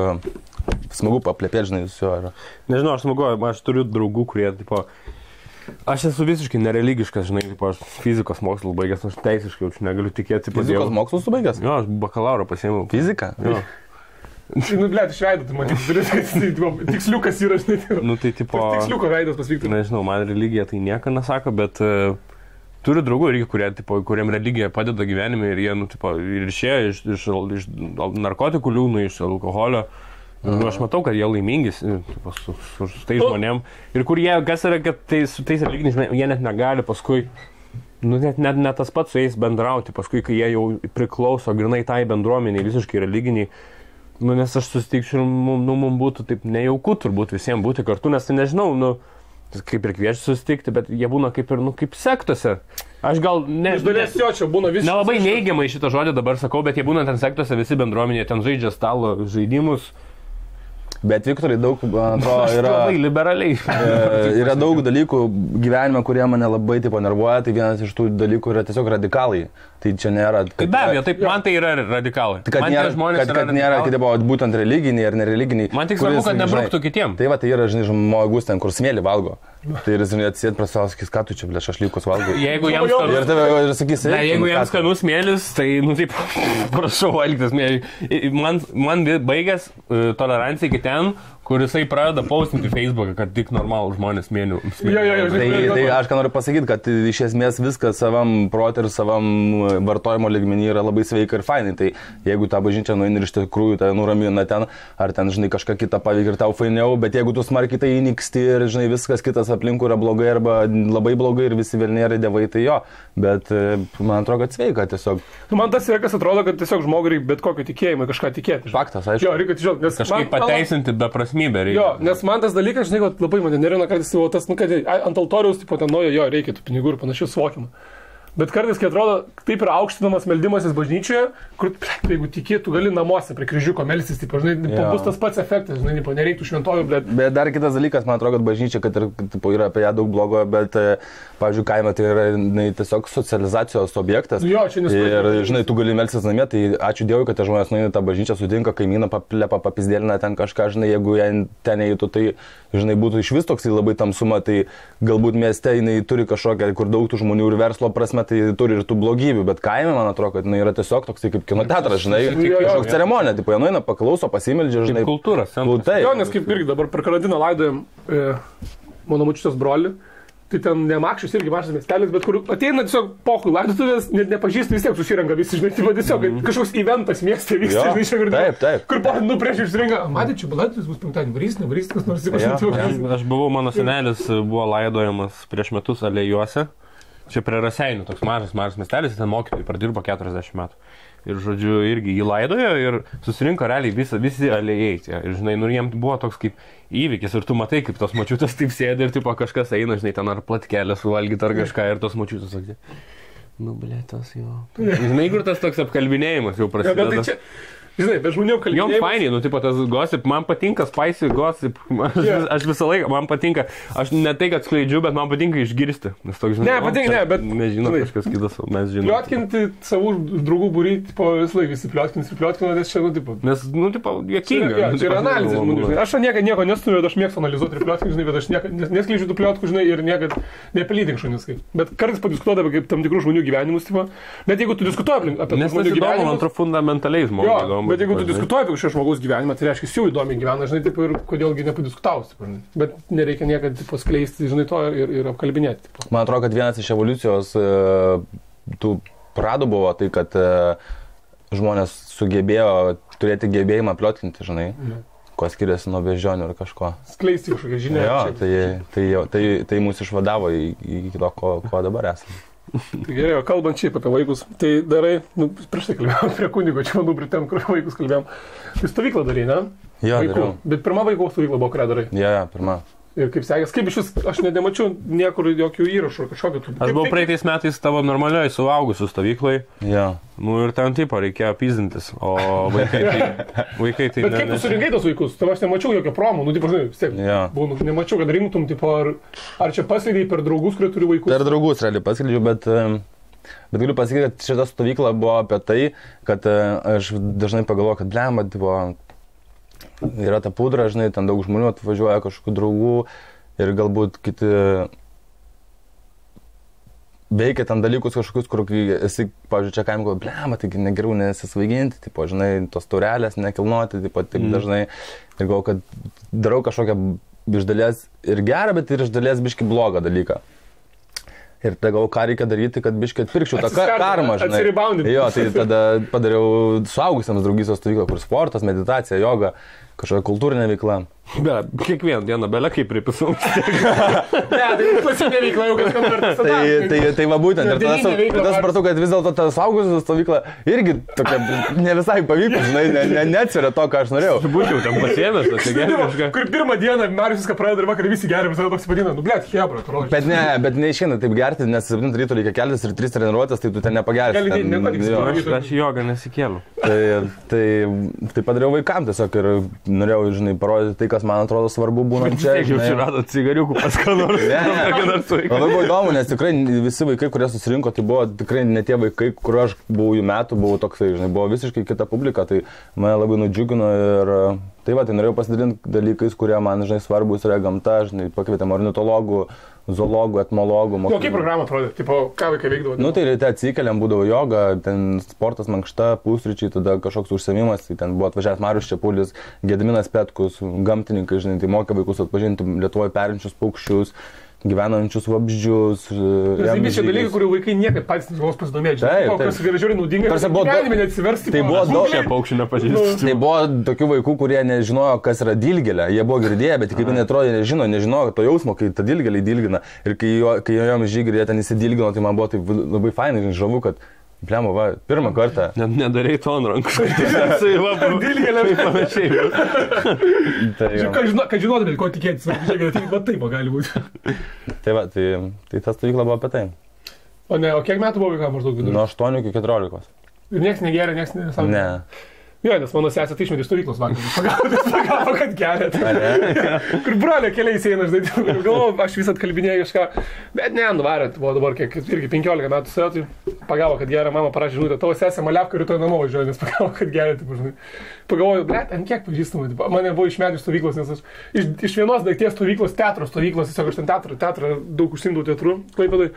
smagu paplėpėti, žinai, su juo.
Nežinau, aš turiu draugų, kurie, tipo, aš esu visiškai nereligiškas, žinai, tipo, aš fizikos mokslų baigęs, aš teisiškai jaučiu, negaliu tikėti.
Fizikos mokslų baigęs?
Jo, aš bakalauro pasiėmiau.
Fiziką?
Jo.
Nu, blėt, iš veido, tu man tiksliukas yra, žinai.
Nu, tai tipo...
Tiksliuko veidas pasvyktų.
Nežinau, man religija tai nieko nesako, bet turiu draugų irgi, kuriem religija padeda gyvenime ir jie, nu, tipo, ir išėjo iš narkotikų liūnų, iš alkoholio. Nu, aš matau, kad jie laimingi su tais žmonėm. Ir kur jie, kas yra, kad su tais religiniais žmonėm, jie net negali paskui, nu, net tas pats su jais bendrauti, paskui, kai jie jau priklauso grinai tai bendruomeniai, visiškai religiniai. Nu, nes aš susitikčiau ir mums būtų taip nejauku turbūt visiems būti kartu, nes tai nežinau, nu, kaip ir kviečiu susitikti, bet jie būna kaip ir, nu, kaip sektose. Aš gal ne...
Iš dalies jo, čia būna visiškai...
Nelabai neigiamai šitą žodį dabar sakau, bet jie būna ten sektose, visi bendruomenė, ten žaidžia stalo žaidimus.
Bet Viktorai daug, man atrodo, yra...
Labai liberaliai.
Yra daug dalykų gyvenime, kurie mane labai tipo nervuoja, tai vienas iš tų dalykų yra tiesiog radikalai. Tai čia nėra...
Be abejo, taip, man tai yra radikalai.
Kad nėra, kad būtent religiniai ar nereliginiai.
Man tik svarbu, kad nebruktų kitiem.
Tai va, tai yra, žinai, žmogus ten, kur smėlį valgo. Tai ir, žinai, atsėd prie savo, sakys, ką tu čia, blė, šašlykus valgai.
Jeigu jam skanus...
Ir tave ir sakys,
jeigu jam skanus smėlis, tai, nu, taip, prašau valgyti smėlį. Man baigęs tolerancija iki ten, kur jisai pradeda postinti Facebooką, kad tik normalų žmonės smėlių.
Tai aš ką noriu pasakyti, kad iš esmės viskas savam protui ir savam vartojimo lygmenį yra labai sveika ir fainai. Tai jeigu tą bažnyčią nueini ir iš tikrųjų tai nuramina ten, ar ten, žinai, kažką kitą paveikia ir tau fainiau, bet jeigu tu smarkiai tai įniksti ir, žinai, viskas kitas aplinkui yra blogai arba labai blogai ir visi velniai dievai, tai jo. Bet man atrodo, kad sveika tiesiog.
Man tas yra, kas atrodo, kad tiesiog žmogui reikia bet kokio tikėjimo kažką tikėti.
Faktas, aišku.
Jo, reikia tiesiog, nes
kažkaip pateisinti beprasmybę reikia.
Jo, nes man tas dalykas, žinai, labai mane nervina kartais tas, nu, kad ant altoriaus, tipo, ten nuojo, jo, reikia tų pinigų ir panašių suvokimą. Bet kartais, kai atrodo, taip yra aukštinamas meldimasis bažnyčioje, kur, jeigu tikėtų, gali namuose prie kryžiuko melstis, tipo, žinai, bus tas pats efektas, žinai, nereiktų šventojų, blėt.
Bet dar kitas dalykas, man atrodo, kad bažnyčia, kad ir, tipo, yra apie ją daug blogo, bet, pavyzdžiui, kaime tai yra tiesiog socializacijos objektas.
Jo, čia nesuprantu.
Ir, žinai, tu gali melstis namie, tai ačiū Dievui, kad žmonės nueina tą bažnyčią, sutinka kaimyną, paplepa, papizdėlina ten kažką, žinai, jeigu jie ten eitų, tai, žinai, būtų iš vis toksai labai tamsuma, tai galbūt mieste jinai turi kažkokią, kur daug tų žmonių ir verslo prasme, tai turi ir tų blogybių, bet kaime, man atrodo, kad jinai yra tiesiog toksai kaip kino teatras, žinai, kažkoks ceremonija, tipo, jie nueina, paklauso, pasimeldžia, žinai.
Kultūros.
Jo, nes kaip irgi dabar per karantiną laidojam mano močiutės brolį. Tai ten ne Makščius irgi mažas miestelis, bet kur ateina tiesiog pokui laidotuvės, net nepažįsti, vis tiek susirenka visi, žinai, tai tiesiog kažkoks eventas mieste vyksta, žinai, čia girdėjau.
Taip.
Kur prieš išsirenka, matė, čia balaitis bus penktadienį, varys, kas nors
įsivažiuoja. Aš buvau, mano senelis buvo laidojamas prieš metus Alėjuose, čia prie Raseinių, toks mažas miestelis, ten mokytojai pradirbo 40 metų. Ir, žodžiu, irgi jį laidojo ir susirinko realiai visi alėjai. Ir, žinai, nu, jiems buvo toks kaip įvykis ir tu matai, kaip tos močiutės taip sėdi ir tipo kažkas eina, žinai, ten ar platkelę suvalgyti ar kažką ir tos močiutės sakė, nu, blėtas jo. Žinai, kur tas toks apkalbinėjimas jau prasideda.
Žinai, bet žmonių kalbėjimas...
Jom fainiai, nu, tipo, tas gossip, man patinka spicy gossip, aš visą laiką, man patinka, aš ne tai, kad skleidžiu, bet man patinka išgirsti. Nes toks, žinai,
bet...
Nežinau, kažkas kitas, mes žinom.
Pliotkinti savų draugų būrį, tipo, visą laiką visi pliotkina, nes čia, nu, tipo...
Nes, nu, tipo, juokinga.
Čia yra analizė žmonių, žinai. Aš nieko nestumiu, bet aš mėgstu analizuoti ir plotkinu, žinai, bet aš neskleidžiu tų pliotkų, žinai, ir niekad nepelydink šunis. Bet kartais padiskutuodavai kaip tam tikrų žmonių gyvenimus, tipo, net jeigu tu diskutuoji apie žmonių gyvenimus, apie šio žmogaus gyvenimą, tai reiškia, jau įdomiai gyvena, žinai, taip, ir kodėlgi nepadiskutaus. Bet nereikia niekada paskleisti, žinai, to ir apkalbinėti. Tipo.
Man atrodo, kad vienas iš evoliucijos tų pradų buvo tai, kad žmonės sugebėjo turėti gebėjimą pliotkinti, žinai, ko skiriasi nuo beždžionių ar kažko.
Skleisti kažkokią žinią.
Jo, tai mūsų išvadavo į to, ko dabar esame.
Tai gerai, kalbant šiaip apie vaikus, tai darai, nu, prieš tai kalbėjom prie kunigo, čia manau, prie ten, kur vaikus kalbėjom. Tai stovyklą darai, ne?
Jo,
vaikų. Bet pirma vaikų stovykla buvo, kurią darai.
Jo, pirma.
Ir kaip sekės, kaip iš vis, aš nemačiau niekur jokių įrašų, kažkokio tų.
Aš buvau praeitais metais tavo normalioj suaugusių stovyklai.
Jo.
Nu ir ten tipo reikėjo pyzdintis, o vaikai tai...
Bet kaip tu surinkai tos vaikus? Tai aš nemačiau jokio promo, nu, tipo, žinai, vis tiek. Buvau, nemačiau, kad rinktum, tipo, ar čia paskleidai per draugus, kurie turi vaikus? Per
draugus, realiai paskleidžiu, bet galiu pasakyti, kad šita stovykla buvo apie tai, kad aš dažnai pagalvoju, kad blemba, tipo, yra ta pudra, žinai, ten daug žmonių atvažiuoja, kažkokių draugų ir galbūt kiti veikia ten dalykus kažkokius, kur esi, pavyzdžiui, čia kaim galvo, blema, taigi negeriau nesisvaiginti, tipo, žinai, tos taurelės nekilnoti, taip dažnai. Ir galvo, kad darau kažkokią iš dalies ir gerą, bet ir iš dalies biški blogą dalyką. Ir tada galvo, ką reikia daryti, kad biškai atpirkčiau tą karmą, žinai. Jo, tai tada padariau suaugusiams draugystės stovyklą, kur sportas, meditacija, joga, kažkokia kultūrinė veikla.
Be, kiekvieną dieną belė kaip pripisau.
Ne, tai klasinė veikla jau kažkam kartą.
Tai va būtent. Ir tada supratau, kad vis dėlto ta suaugusių stovykla irgi tokia ne visai pavyko, žinai, neatsveria to, ką aš norėjau.
Būčiau tam pasiėmęs, tas gerai kažką.
Kur pirmą dieną Marius viską pradeda ir vakarą visi geria, visada toks vadina, nu blėt, hebra, atrodo.
Bet neišeina taip gerti, nes 7 ryto reikia keltis ir 3 treniruotės, tai tu ten nepagersi.
Aš jogą nesikėliau.
Tai padariau vaikam tiesiog ir norėjau, žinai, parodyti tai, kas man atrodo svarbu būnant čia.
Taip, jau radot cigariukų pas ką nors.
Labai buvo įdomu, nes tikrai visi vaikai, kurie susirinko, tai buvo tikrai ne tie vaikai, kur aš buvau jų metų, buvau toksai, žinai, buvo visiškai kita publika, tai mane labai nudžiugino ir tai va, tai norėjau pasidalinti dalykais, kurie man, žinai, svarbus yra gamta, žinai, pakvietėm ornitologų, zoologų, etmologų.
O kaip programą atrodė? Tipo, ką vaikai veikdavo?
Nu, tai ryte atsikeliam, būdavo joga, ten sportas, mankšta, pusryčiai, tada kažkoks užsiėmimas, tai ten buvo atvažiavęs Marius Čepulis, Gediminas Petkus, gamtininkai, žinai, tai mokė vaikus atpažinti Lietuvoje perinčius paukščius, gyvenančius vabzdžius.
Tai čia dalykai, kurių vaikai niekad patys nežinau pasidomėti. Taip, kas yra žiūri naudinga, gyvenime neatsiversti.
Tai buvo daug
šie paukščių nepažįstu.
Tai buvo tokių vaikų, kurie nežinojo, kas yra dilgėlė. Jie buvo girdėję, bet kaip jie neatrodė, nežinojo to jausmo, kai ta dilgėlė dilgina. Ir kai jom žygri, jie ten įsidilgino, tai man buvo taip labai fainai, žavu, kad Pliamo, va, pirmą kartą.
Nedarai to ant rankų. Dilgėlė ir panašiai.
Kad žinotumėt, ko tikėtis, va taip gali būti.
Tai va, tai ta stovykla buvo apie tai.
O kiek metų buvo vaikam maždaug vidurį?
Nuo 8 iki 14.
Ir nieks negeria, nieks nesąmonė?
Ne.
Jo, nes mano sesė tai išmetė iš stovyklos vakar. Pagavo, kad gerėt. Kur brolio keliais eina, žinai, galvoju, aš vis atkalbinėjau kažką, bet ne, nuvarėt, buvo dabar kiek, irgi 15 metų sėjo, tai pagavo, kad geria, mama parašė žinutę, tavo sesė Malevka rytoj namo važiuoja, nes pagavo, kad geria, taip, žinai. Pagalvoju, blėt, ant kiek pažįstamai, mane buvo išmetę iš stovyklos, nes aš iš vienos daikties stovyklos, teatro stovyklos, tiesiog aš ten teatrą daug užsimdavau teatru, Klaipėdoj.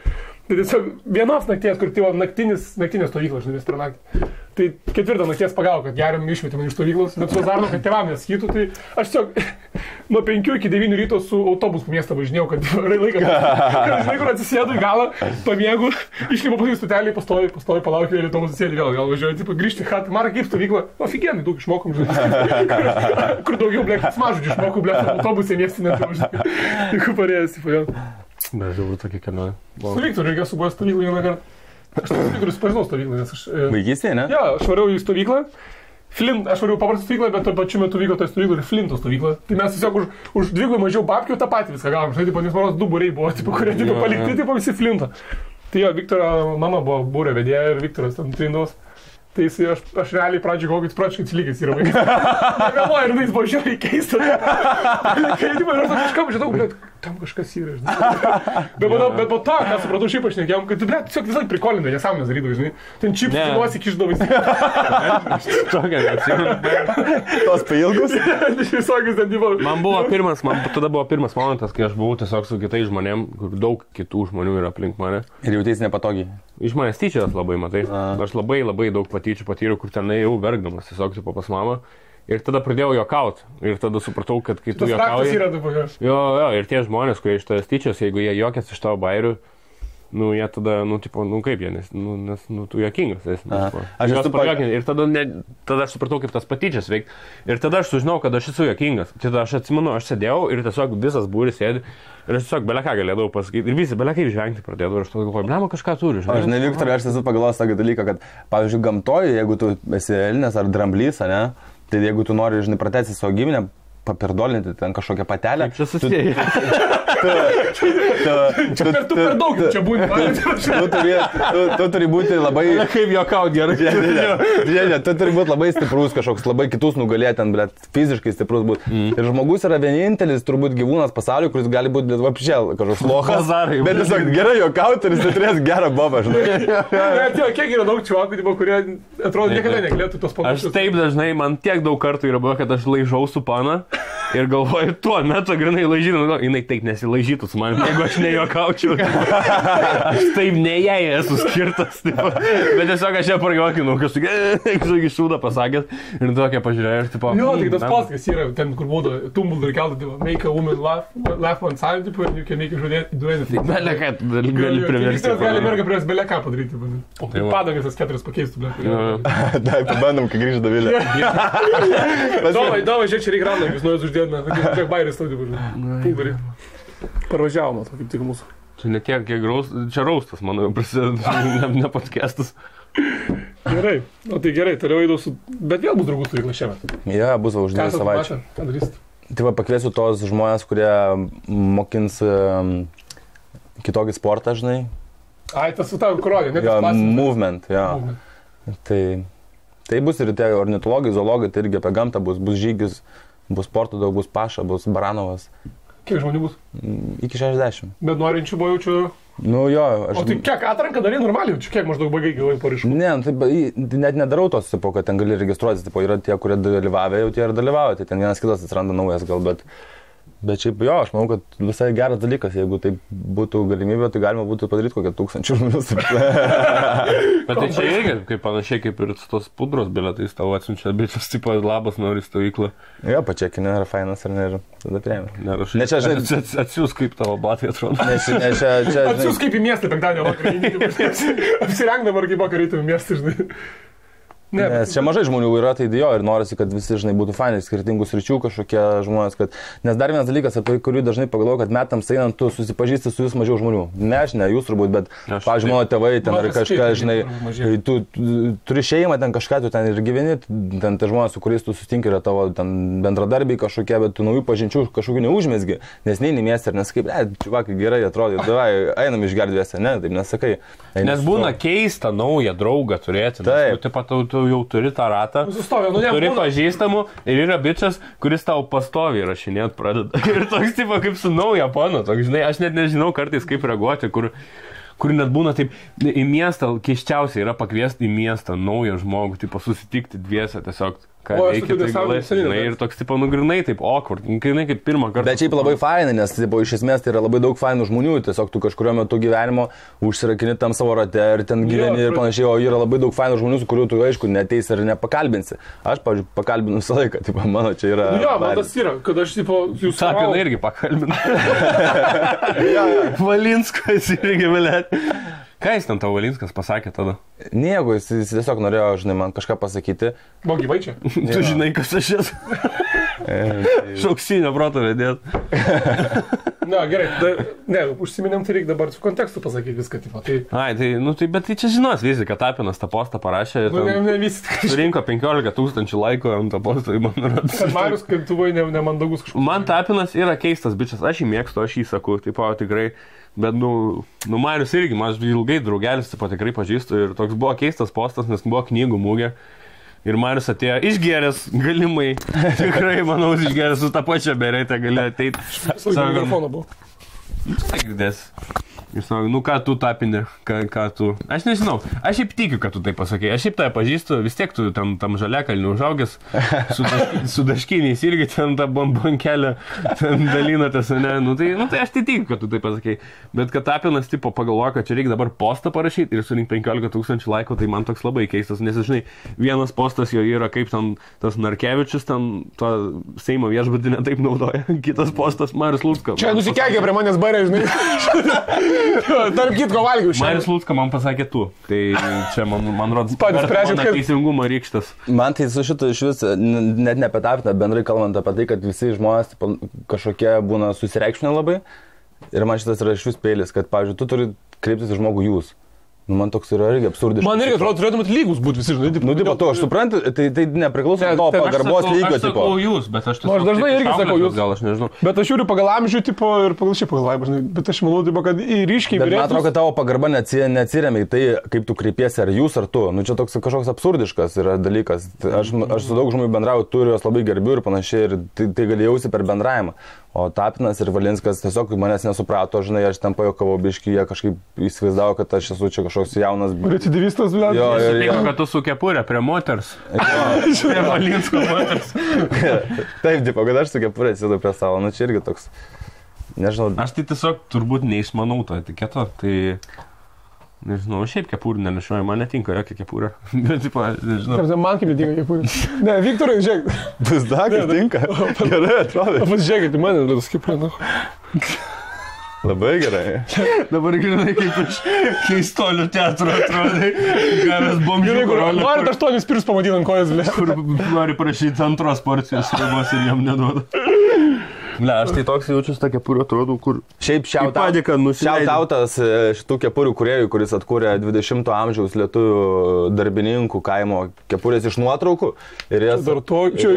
Tai tiesiog vienos nakties, kur tai naktinė stovykla, žinai, per naktį. Tai 4 nakties pagavo, kad geriam išmetė man iš stovyklos, bet su Zarnu, kad tėvam nesakytų, tai aš tiesiog nuo 5 iki 9 ryto su autobusu miestą važinėjau, kad laiką, žinai, kur atsisėdu į galą, pamiegu, išlipo pas į stotelį, pastovi, palaukiu, vėl autobusą sėdi, vėl važiuoju, tipo, grįžti į chatą, Marą kaip stovykla, ofigienai, daug išmokom, žinai, kur daugiau, blėk, smažudžių išmokau, blėk, autobusė miestinė, tai kur parėjęs, tipo, vėl.
Bet jau tokia kelionė.
Stovyktų, reikia subuvęs stovyklą vieną kartą. Aš stovyklių susipažinau stovyklą, nes aš...
Vaikystėje, ne?
Jo, aš variau į stovyklą. Aš variau paprastą stovyklą, bet tuo pačiu metu vyko toje stovykloje ir Flinto stovykla. Tai mes tiesiog už 2 mažiau babkių tą patį viską gavom. Žinai, nes manos 2 būriai buvo, kurie palikti, visi Flinto. Tai jo, Viktoro mama buvo būrio vedėja ir Viktoras ten trindavos. Tai aš realiai pradžiai galvoju, kad jis pračiai atsilikęs yra vaikas. Negalvoju, ir jis buvo žiauriai keistas. Kai ir aš kažkam žinau, bet tam kažkas yra, žinai. Bet po to, ką supratau, šiaip aš nekėjom, kad tu, blėt, tiesiog visai prikolinai, nesąmonės darydavai, žinai. Ten čipsų nuosi kišdavai.
Tokia, neatsimenu.
Tos pailgus?
Visokius ten buvo.
Tada buvo pirmas momentas, kai aš buvau tiesiog su kitais žmonėm, kur daug kitų žmonių yra aplink mane.
Ir jautėsi nepatogiai.
Iš manęs tyčias labai, matai. Aš labai daug patyčių patyriau, kur ten jau verkdamas, tiesiog tipo pas mamą. Ir tada pradėjau juokauti. Ir tada supratau, kad kai tu juokauji... Jo, ir tie žmonės, kurie iš tavęs tyčias, jeigu jie juokiasi iš tavo bairių, nu, jie tada, kaip jie, nes tu juokingas. Ir tada aš supratau, kaip tas patyčias veikia. Ir tada aš sužinau, kad aš esu juokingas. Tada aš atsimenu, aš sėdėjau ir tiesiog visas būris sėdi. Ir aš tiesiog beleką galėdavau pasakyti. Ir visi belekai žvengti pradėdavo. Ir aš tada galvoju, blema, kažką turi.
Aš ne, Viktorai, aš esu pagalvojęs tokį dalyką, kad, pavyzdžiui, gamtoje, jeigu tu esi elnias ar dramblys, ne, tai jeigu tu nori, žinai, pratęsti savo giminę, papirdolinti ten kažkokią patelę.
Čia susiję.
Tu per daug čia būni.
Tu turi būti labai...
Kaip juokaut gerai.
Žiūrėk, tu turi būti labai stiprus kažkoks, labai kitus nugalėti, bet fiziškai stiprus būti. Ir žmogus yra vienintelis, turbūt gyvūnas pasaulyje, kuris gali būti vapšėl kažkoks lochas. Bet tiesiog gerai juokauti ir jis turės gerą bobą, žinai.
Kiek yra daug čivakų, kurie atrodo niekada negalėtų tos panašius.
Aš taip dažnai, man tiek daug kartų yra buvo, kad aš laižau su pana Ir galvoju, tuo metu grinai laižydama, jinai taip nesilaižytų su manim, jeigu aš nejuokaučiau. Aš taip ne jai esu skirtas. Tipo. Bet tiesiog aš ją prajuokinau, kažkokį šūdą pasakęs ir tokia pažiūrėjau ir tipo...
Jo, tik tas poskas yra, ten kur būdų, Tumblr keltų, make a woman laugh one time, tipo, ir you can make a do anything.
Belia ką, gali priversti.
Gali merga prieš belia ką padaryti. O tai padangas tas 4 pakeistų, bet.
Taip, pabandom, kai grįžta Dovilė.
Davai, žiūrėk, čia reikia randam, jūs nuėjus uždėdame, kiek bairis tau dirbų. Parvažiavome to, kaip tik mūsų.
Čia ne tiek, kiek čia raustas, manau, prasideda, ne podcastas.
Gerai, o tai gerai, toliau eidau su... Bet vėl bus draugų stovykla šiemet.
Ja, bus už 2 savaičių.
Ką darysit?
Tai va, pakviesiu tos žmonės, kurie mokins kitokį sportą, žinai.
Ai, tas su tavo kurodė, ne?
Jo, movement, jo. Tai bus ir tie ornitologai, zoologai, tai irgi apie gamtą bus žygis, bus sporto daug, bus Paša, bus Baranovas.
Kiek žmonių bus?
Iki 60.
Bet norinčių buvo jaučiu...
Nu jo,
O tai kiek atranką darai normaliai, čia kiek maždaug baigai gavai paraiškų?
Ne, tai net nedarau tos, tipo, kad ten gali registruotis, tipo, yra tie, kurie dalyvavę, jau tie ir dalyvauja, tai ten vienas kitas atsiranda naujas gal, bet šiaip jo, aš manau, kad visai geras dalykas, jeigu tai būtų galimybė, tai galima būtų padaryti kokią 1000 žmonių.
Bet tai čia irgi, kaip panašiai kaip ir tos pudros bilietais tavo atsiunčia, bičias, tipo, labas nori stovyklą.
Jo, pačekinė, ar fainas, ar ne, ir tada priėmė.
Ne, čia, žinai, atsiūs kaip tavo batai atrodo.
Atsiūs kaip į miestą penktadienio vakarą, apsirengdama ar kaip vakarą į miestą, žinai.
Nes čia mažai žmonių yra, tai jo, ir norisi, kad visi, žinai, būtų fainai, skirtingų sričių kažkokie žmonės, kad... Nes dar vienas dalykas, apie kurį dažnai pagalvoju, kad metams einant, tu susipažįsti su vis mažiau žmonių. Ne, aš ne, jūs turbūt, bet, pavyzdžiui, mano tėvai ten ar kažką, žinai, tu turi šeimą ten kažką, tu ten ir gyveni, ten tie žmonės, su kuriais tu susitinki, yra tavo ten bendradarbiai kažkokie, bet tu naujų pažinčių kažkokių neužmesgi, nes neini miestą ir nesakai, čiuvakai, gerai atrodo, davai, einam išgerdvėse, ne, taip nesakai.
Nes būna keista naują draugą turėti. Tu jau turi tą ratą, turi pažįstamų ir yra bičias, kuris tau pastoviai rašinėt pradeda. Ir toks tipo kaip su nauja pano, toks, žinai, aš net nežinau kartais kaip reaguoti, kur net būna taip, į miestą, keiščiausiai yra pakviesti į miestą naują žmogų, tipo susitikti dviese tiesiog. Ką reikia, tai galės, žinai, ir toks, tipo, nugrinai taip awkward, nugrinai kaip pirmą kartą.
Bet šiaip labai fainai, nes, tipo, iš esmės tai yra labai daug fainų žmonių, tiesiog tu kažkurio metu gyvenimo užsirakini tam savo rate ir ten gyveni ir panašiai, o yra labai daug fainų žmonių, su kuriuo tu, aišku, neteisi ir nepakalbinsi. Aš, pavyzdžiui, pakalbinu visą laiką, tipo, mano čia yra...
Jo, man tas yra, kad aš, tipo, jūs...
Tapiną irgi pakalbinu. Valinskas irgi, velėt. Ką jis ten tavo Valinskas pasakė tada?
Nieko, jis tiesiog norėjo, žinai, man kažką pasakyti.
Buvo gyvai čia?
Tu žinai, kas aš esu. Šauksinio proto vedėt.
Na, gerai, užsiminėm, tai reikia dabar su kontekstu pasakyti viską, tipo.
Ai, tai, bet tai čia žinos visi, kad Tapinas tą postą parašė.
Ne visi.
Surinko 15 000 laikų ant tą postą, man rodos.
Kad Marius, kaip tu buvai nemandagus kažkoks.
Man Tapinas yra keistas bičias, aš jį mėgstu, aš jį sakau, tipo, tikrai. Bet, Marius irgi, aš ilgai draugelis, tipo, tikrai pažįstu ir toks buvo keistas postas, nes buvo knygų mūgė. Ir Marius atėjo išgeręs galimai, tikrai, manau, išgeręs su tą pačią beretę galėjo ateiti.
Sako, mikrofoną buvo.
Girdės. Ir sako, ką tu Tapini, ką tu... Aš nežinau, aš šiaip tikiu, kad tu tai pasakė. Aš šiaip tai pažįstu, vis tiek tu tam žaliakalnių užaugęs, su daškiniais irgi ten tą bombonkelę dalinatės, ne? Tai aš tai tikiu, kad tu tai pasakė. Bet kad Tapinas tipo pagalvoja, kad čia reikia dabar postą parašyti ir surinkti 15 000 laikų, tai man toks labai keistas. Nes, žinai, vienas postas jo yra kaip ten tas Narkevičius, ten to Seimo viešbutį netaip naudoja. Kitas postas Marius Lucka.
Čia nusikekė prie manęs barė, žinai. Tarp kitko valgiau šiandien.
Marius Lucka man pasakė tu. Tai čia man rodos teisingumo rykštas.
Man tai su šito iš vis, net ne apie Tapiną, bendrai kalbant apie tai, kad visi žmonės kažkokie būna susireikšminę labai. Ir man šitas yra iš vis peilis, kad, pavyzdžiui, tu turi kreiptis į žmogų jūs. Man toks yra irgi absurdiškas.
Man irgi atrodo, turėtumėt lygus būti visi, žinai.
Tipo, to aš suprantu, tai nepriklauso nuo to pagarbos lygio,
tipo. Aš sakau jūs, bet aš
aš dažnai irgi sakau jūs.
Gal aš nežinau.
Bet aš žiūriu pagal amžių, tipo, ir pagal šį pagal laimą, žinai. Bet aš manau, tipo, kad ryškiai vyresnis.
Man atrodo, kad tavo pagarba neatsiremia į tai, kaip tu kreipiesi, ar jūs, ar tu. Čia toks kažkoks absurdiškas yra dalykas. Aš su daug žmonių bendrauju, turiu juos labai gerbiu ir panašiai, ir tai gali jausti per bendravimą. O Tapinas ir Valinskas tiesiog manęs nesuprato, žinai, aš ten pajokavau biškį, jie kažkaip įsivaizdavo, kad aš esu čia kažkoks jaunas.
Recidivistas, blė.
Jo, sutiko, kad tu su kepurė prie moters. Prie Valinsko moters.
Taip, tipo, kad aš su kepurė atsidu prie savo, nu čia irgi toks, nežinau.
Aš tai tiesiog turbūt neišmanau to etiketo, tai... Nežinau, šiaip kepurį nenešioju, man netinka jokia kepurė. Bet, tipo, nežinau.
Man kaip netinka kepurė. Ne, Viktorai, žiūrėk.
Vis dar tinka. Gerai atrodo.
Pasižiūrėkit, man nedas kepurė, nu.
Labai gerai.
Dabar grinai kaip iš keistolių teatro atrodai. Gavęs bomžių karolį.
Norit 8 pirus pamatyti ant kojas, blė.
Kur nori prašyti antros porcijos ribos ir jam neduoda. Ne, aš tai toks jaučiuosi tą kepurį atrodo, kur...
Šiaip šiautautas šitų kepurių kūrėjų, kuris atkūrė 20 amžiaus lietuvių darbininkų kaimo kepurės iš nuotraukų. Ir jas...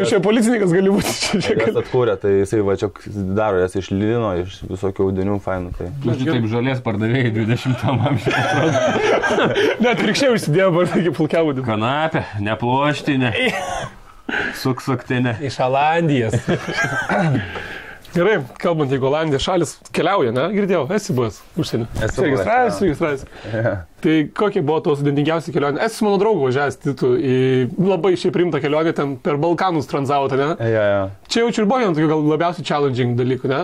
Čia policininkas gali būti.
Jas atkūrė, tai jisai va čia daro jas iš lino, iš visokių audinių fainų. Tai...
Taip žolės pardavėjai 20 amžiaus atrodo.
Net rykščiai užsidėjo vardai pulkiavodį.
Kanapė, neploštinė. Suksaktinė.
Iš Olandijos. Gerai, kalbant, jeigu Olandijos šalis keliauja, ne? Girdėjau, esi buvęs užsienį.
Esu
registravęs. Tai kokie buvo tos sudėtingiausi kelionė? Esu mano draugo važiavęs Titu į labai šiaip rimtą kelionę, ten per Balkanus tranzavote, ne? Čia jaučiu ir buvo vien tokių gal labiausiai challenging dalykų, ne?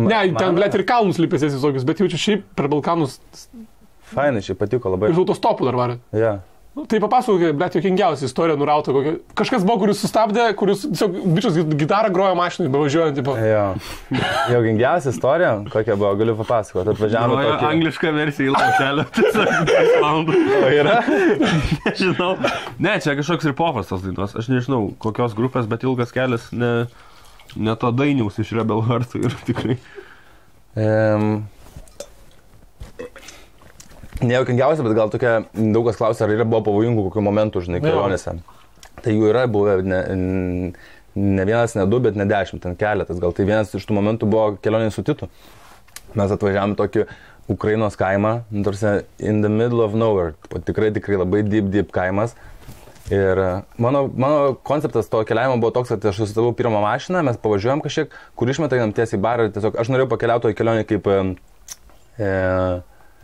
Ne, ten, blėt, ir kalnus lipėsės visokius, bet jaučiu šiaip per Balkanus...
Fainai, šiaip patiko labai.
Ir autostopų dar varė. Tai papasakok, blėt, jokingiausia istorija nurauta kokia. Kažkas buvo, kuris sustabdė, kuris tiesiog bičias gitarą grojo mašinai, bevažiuojant, tipo.
Jokingiausia istorija, kokia buvo, galiu papasakoti. Atvažiavome tokį...
Anglišką versiją į laušelę. O
yra?
Nežinau. Ne, čia kažkoks ir popas tos dainos. Aš nežinau, kokios grupės, bet ilgas kelias, ne to dainiaus iš Rebel Heart ir tikrai.
Nejaukingiausia, bet gal tokia, daug kas klausia, ar yra buvo pavojingų kokių momentų, žinai, kelionėse. Tai jų yra buvę ne vienas, ne du, bet ne 10, ten keletas. Gal tai vienas iš tų momentų buvo kelionė su Titu. Mes atvažiavome tokį Ukrainos kaimą, tarsi in the middle of nowhere. Tikrai labai deep kaimas. Ir mano konceptas to keliavimo buvo toks, kad aš susistavau pirmą mašiną, mes pavažiuojam kažkiek, kur išmetai einam tiesiai į barą ir tiesiog aš norėjau pakeliauti į kelionę kaip...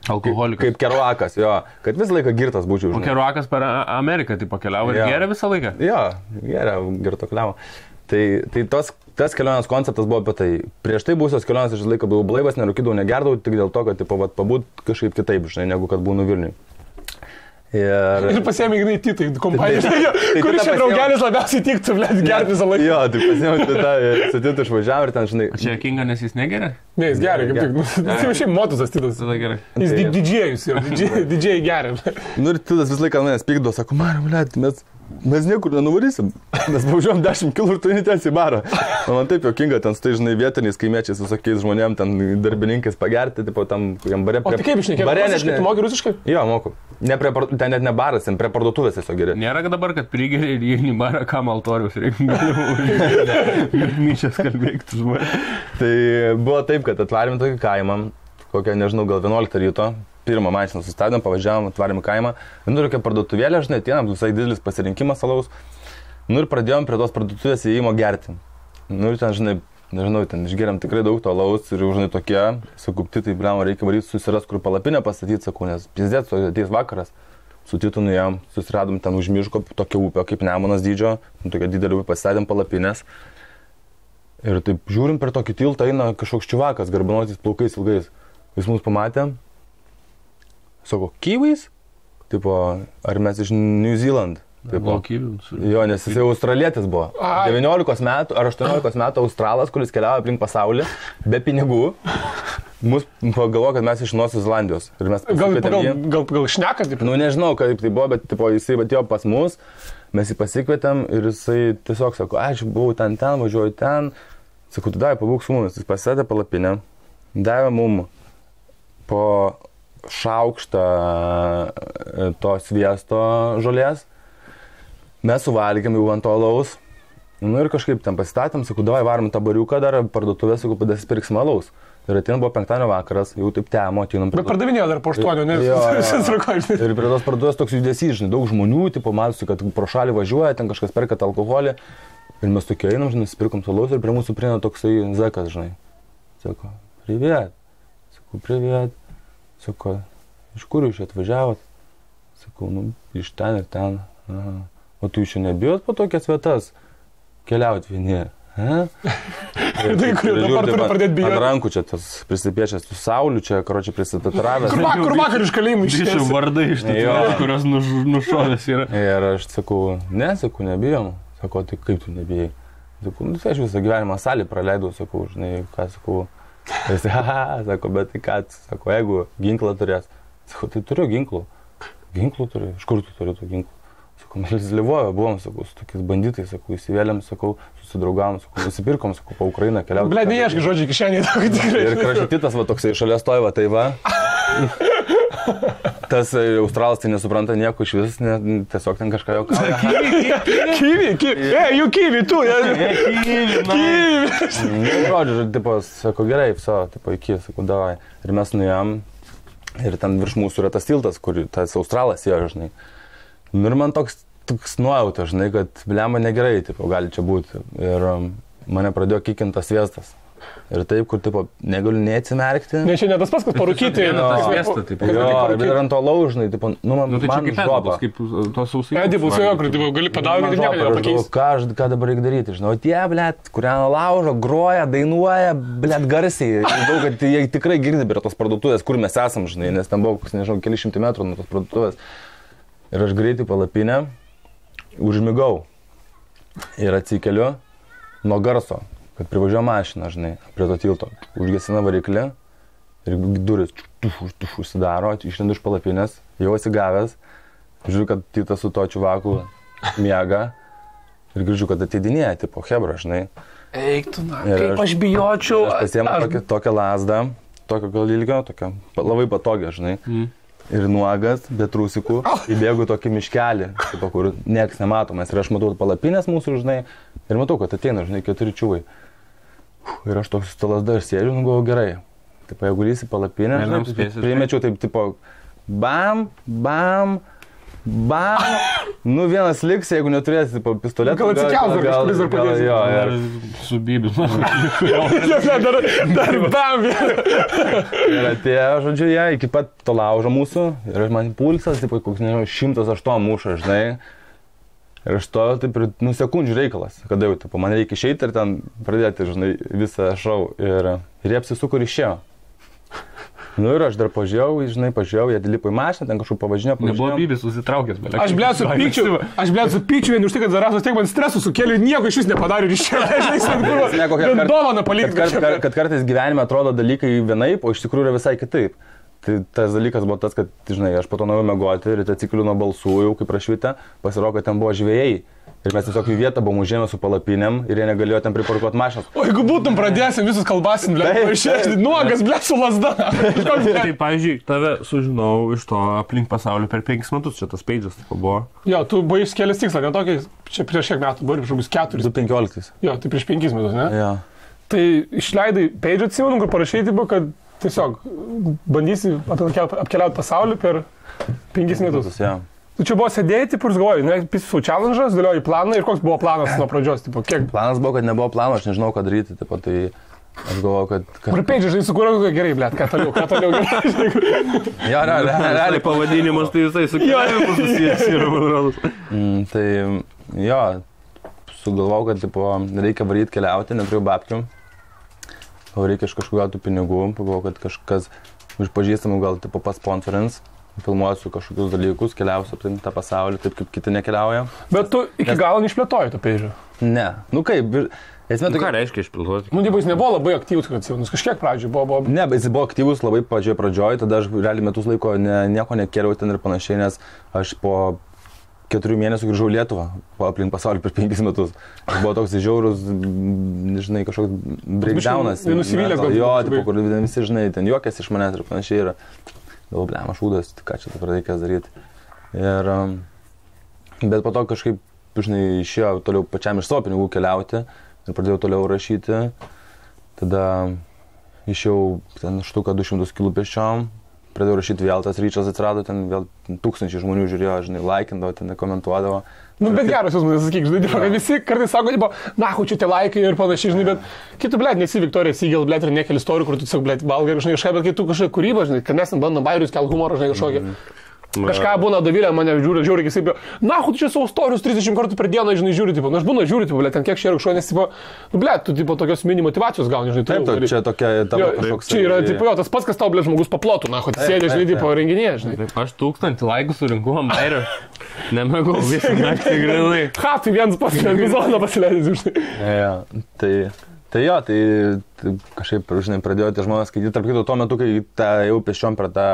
Alkoholikas.
Kaip Keruakas, jo, kad visą laiką girtas būčiau.
O Keruakas per Ameriką tai pakeliavo ir geria visą laiką?
Jo, geria, girto keliavo. Tai tas kelionės konceptas buvo apie tai. Prieš tai būsios kelionės aš visą laiką buvau blaivas, nerūkydavau, negerdavau, tik dėl to, kad pabūt kažkaip kitaip, žinai, negu kad būnu Vilniui.
Ir pasiėmė Ignai Titai kompaniją, kuris čia draugelis labiausiai tiktų, blėt, gerti visą laiką.
Jo, tai pasiėmė su Titu išvažiavo ir ten, žinai...
Čia Kinga, nes jis negeria?
Ne, jis geria, kaip tik. Tai jau šiaip motusas Titas.
Tada gerai.
Jis didžėjus jau, didžėjai geria.
Nu ir Titas visą laiką manęs pykdo, sako, Mariu, blėt, mes niekur nenuvarysim, mes važiuojam 10 km ir tu netęsi į barą. Man taip jokinga, ten stai, žinai, vietiniais kaimiečiais, visokiais žmonėm, ten darbininkais pagerti, tipo, tam kokiam bare.
O tai kaip išnekėjai? Rusiškai, tu moki rusiškai?
Jo, moku. Ten net ne baras, ten prie parduotuvės tiesiog geri.
Nėra dabar, kad prigeri ir įeini į barą, kam altorius reikia. Myčias kalbėktų žmonės.
Tai buvo taip, kad atvarėm tokį kaimą, kokią, nežinau, gal 11 ryto. Pirmą mašiną sustabdėm, pavažiavom, atvarėm į kaimą. Nu ir tokia parduotuvėlė, žinai, atėjom, visai didelis pasirinkimas alaus. Nu ir pradėjom prie tos parduotuvės įėjimo gerti. Nu ir ten, žinai, nežinau, ten išgeriam tikrai daug to alaus ir, žinai, tokie, sakupti, tai, blema, reikia varyti susiras, kur palapinę pastatyti, sakau, nes pizdėt, ateis vakaras. Su Titu nuėjom, susiradom ten už miško tokią upę, kaip Nemunas dydžio, tokia didelė upė, pastatėm palapinės. Ir taip žiūrim per tokį tiltą eina kažkoks čiuvakas, garbanotys plaukais ilgais. Jis mus pamatė. Sako, Kiwis? Tipo, ar mes iš New Zealand? Tipo, jo, nes jis jau australietis buvo. 19 metų ar 18 metų australas, kuris keliavo aplink pasaulį, be pinigų. Mus pagalvo, kad mes iš Naujosios Zelandijos.
Gal šneka, taip?
Nu, nežinau, kaip tai buvo, bet tipo, jisai atėjo pas mus, mes jį pasikvietėm ir jisai tiesiog sako, aš buvau ten, važiuoju ten. Sakau, tu davai, pabūk su mumis. Jis pasėdė palapinę, davė mum po šaukštą to sviesto žolės. Mes suvalgėm jau ant to alaus. Nu ir kažkaip ten pasistatėm, sakau, davai varom tą bariuką dar parduotuvę, sakau, padasipirksim alaus. Ir atėjom buvo penktadienio vakaras, jau taip temo atėjom.
Bet pardavinėjo dar po 8, ne?
Ir prie tos parduotuvės toks judesys, žinai, daug žmonių, tipo, matosi, kad pro šalį važiuoja, ten kažkas perka alkoholį. Ir mes tokie einam, žinai, nusipirkom alaus ir prie mūsų prieina toksai zekas, žinai. Sako, priviet. Sakau, priviet. Sako, iš kur jūs čia atvažiavot? Sakau, nu, iš ten ir ten. Aha. O tu jūs čia nebijot po tokias vietas keliauti vieni?
Tai kur dabar turi pradėti bijoti?
Ant rankų čia tas prisipiešęs, tu sauliu čia, karočią prisitatiravęs.
Kur vakar iš kalėjimų
išėjo vardai iš tų, kurios nušovės yra.
Ir aš sakau, nebijom. Sako, tai kaip tu nebijai? Sakau, nu, tai aš visą gyvenimą salį praleidau, sakau, žinai, ką sakau. Ir jis, sako, bet tai ką, sako, jeigu ginklą turės. Sakau, tai turiu ginklų. Ginklų turiu, iš kur tu turi tų ginklų? Sakau, mes Lvove buvom, sakau, su tokiais banditais, sakau, įsivėlėm, sakau, susidraugavom, sakau, nusipirkom, sakau, po Ukrainą keliauti.
Ble, neieškai žodžiai kišenėje, tokį tikrai.
Ir kraštitas, va, toksai šalia stovi, tai va. Tas Australas tai nesupranta nieko iš vis, tiesiog ten kažką jau kalba.
Kivi, tu,
Žodžiu, tipo, sako, gerai, viso, tipo, iki, sako, davai. Ir mes nuėjom, ir ten virš mūsų yra tas tiltas, kur tas Australas ėjo, žinai. Ir man toks nuojauta, žinai, kad blemba negerai, tipo, gali čia būti. Ir mane pradėjo kikintas sviestas. Ir taip, kur, tipo, negaliu neatsimerkti.
Ne, čia ne tas pats, kad parūkyti.
Ir ant to laužnai, tipo, nu, man žopa.
Kaip tos sausai.
Edibus, jo, kur, tipo, gali padauginti, nieko nepakeisti.
Ką dabar reikia daryti, žinau, tie, blėt, kurią laužo, groja, dainuoja, blėt, garsiai. Žinau, kad jie tikrai girdi prie tos parduotuvės, kur mes esam, žinai, nes ten buvo, nežinau, keli šimtai metrų nuo tos parduotuvės. Ir aš greitai palapinę, užmigau ir atsikeliu nuo garso, kad privažiuoja mašina, žinai, prie to tilto. Užgesina variklį ir duris užsidaro, išlendu iš palapinės, jau atsigavęs, žiūriu, kad Titas su to čiuvaku miega ir girdžiu, kad ateidinėja, tipo, hebra, žinai.
Eik tu, na, kaip aš bijočiau.
Aš pasiėmu tokią lasdą, tokio gal ilgio, tokią labai patogią, žinai. Ir nuogas, be trusikų, įbėgu tokį miškelį, tipo, kur nieks nematomas. Ir aš matau palapinės mūsų, žinai, ir matau, kad ateina, žinai, 4 čiuvai. Ir aš toks su lasda ir sėdžiu, nu galvoju, gerai. Taip, jeigu lysi palapinę, primečiau taip, tipo, bam, bam, bam. Nu, vienas liks, jeigu neturėsi, tipo, pistoletą.
Gal atsikels, dar kažkuris dar padėsi.
Jo, ir
su bybis.
Dar bam.
Ir atėjo, žodžiu, jie iki pat to laužo mūsų. Ir man pulsas, tipo, koks, nežinau, 108 muša, žinai. Ir aš to, taip, nu, sekundžių reikalas, kada jau, tipo, man reikia išeiti ir ten pradėti, žinai, visą šou. Ir jie apsisuko ir išėjo. Nu ir aš dar pažiūrėjau, žinai, jie lipo į mašiną, ten kažkur pavažinėjo.
Nebuvo bybis susitraukęs, bet...
Aš blėt su pykčiu vien už tai, kad Zarasas tiek man stresų sukėlė, nieko iš vis nepadarė ir išėjo. Dovaną palikti.
Kad kartais gyvenime atrodo dalykai vienaip, o iš tikrųjų yra visai kitaip. Tai tas dalykas buvo tas, kad, žinai, aš po to norėjau mėgoti ir atsikeliu nuo balsų, jau kaip prašvita, pasirodo, kad ten buvo žvėjai. Ir mes tiesiog į vietą buvom užėmę su palapinėm ir jie negalėjo ten priparkuoti mašinas.
O jeigu būtum pradėsim visus kalbasim, blėt, išėsti nuogas, blėt, su lasda.
Tai, pavyzdžiui, tave sužinau iš to aplink pasaulį per 5 metus, čia tas peidžas taip buvo.
Jo, tu buvai išskėlęs tikslą, ne tokį, čia prieš kiek metų, buvo prieš 4.
2015.
Jo, tai prieš 5 metus, ne?
Jo.
Tai išleidai peidžą, atsimenu, kur parašai, tipo, kad tiesiog bandysi apkeliauti pasaulį per 5 metus.
Ja.
Tu čia buvo sėdėjai, taip ir galvojai, ne, pisų challenge'as, dėlioji planą ir koks buvo planas nuo pradžios, tipo, kiek?
Planas buvo, kad nebuvo plano, aš nežinau, ką daryti, tipo, tai aš galvoju, kad...
Kur peidžiai, žinai, sukūrė, gerai, blėt, ką toliau gerai.
Jo, realiai
pavadinimas, tai visai su keliavimu susijęs yra, man rodos.
Tai, jo, sugalvojau, kad, tipo, reikia varyti keliauti, neturiu babkių. O reikia iš kažkokių tų pinigų, pagalvojau, kad kažkas iš pažįstamų gal, tipo, pasponsorins. Filmuosiu kažkokius dalykus, keliausiu aplink tą pasaulį, taip kaip kiti nekeliauja.
Bet tu iki galo neišplėtoji to peidžio?
Ne. Nu kaip, esmė
tokia... Ką reiškia išplėtoti?
Nu, jis nebuvo labai aktyvus, kad jis kažkiek pradžioj buvo...
Ne, bet jis buvo aktyvus labai pradžioj, tada aš realiai metus laiko nieko nekėliau ten ir panašiai, nes aš po 4 mėnesių grįžau Lietuvą, aplink pasaulį per 5 metus. Aš buvo toks žiaurus, žinai, kažkoks breakdownas.
Nusivylęs gal.
Jo, tipo, kur visi, žinai, ten juokės iš manęs ir panašiai yra. Galvoju, blem, aš šūdas, ką čia dabar reikės daryti. Ir, bet po to kažkaip, žinai, išėjo toliau pačiam iš savo pinigų keliauti ir pradėjau toliau rašyti. Tada išėjau ten štuką 200 kg pėsčiom, pradėjau rašyti vėl, tas ryčas atsirado, ten vėl 1000 žmonių žiūrėjo, žinai, laikindavo, ten komentuodavo.
Nu, bet geras jūs man sakyk, žinai, kad visi kartais sako, tipo, na, čia tie laikai ir panašiai, žinai, bet kitų, blėt, nesi Viktorija Sygel, blėt, ir nekeli istorijų, kur tu tiesiog, blėt, valgai, žinai, kažką, bet kai tu kažką kūrybą, žinai, kad mes bandom bairius, kel humorą, žinai, kažkokį. Kažką būna Davilė, mane žiūri, kaip, na, tu čia savo istorijus 30 kartų per dieną, žinai, žiūri, tipo, na, aš būna žiūri, tipo, blėt, ten kiek šia kažko, nes, tipo, nu, blėt, tu, tipo, tokios mini motivacijos gauni, žinai,
taip, čia tokia, tavo kažkoks.
Čia yra, tipo, jo, tas pats, kas tau, blėt, žmogus paplotų, na, tu sėdė, žinai, tipo, renginėje, žinai.
Aš 1000 laikų surinkau ant bairio, nemėgau visą naktį grinai.
Ha, tai vienas pats epizodą pasileidžiu, žinai.
Tai jo, tai kažkaip, žinai, pradėjo tie žmonės skaityti. Tarp kitų, tuo metu, kai jau pešiom per tą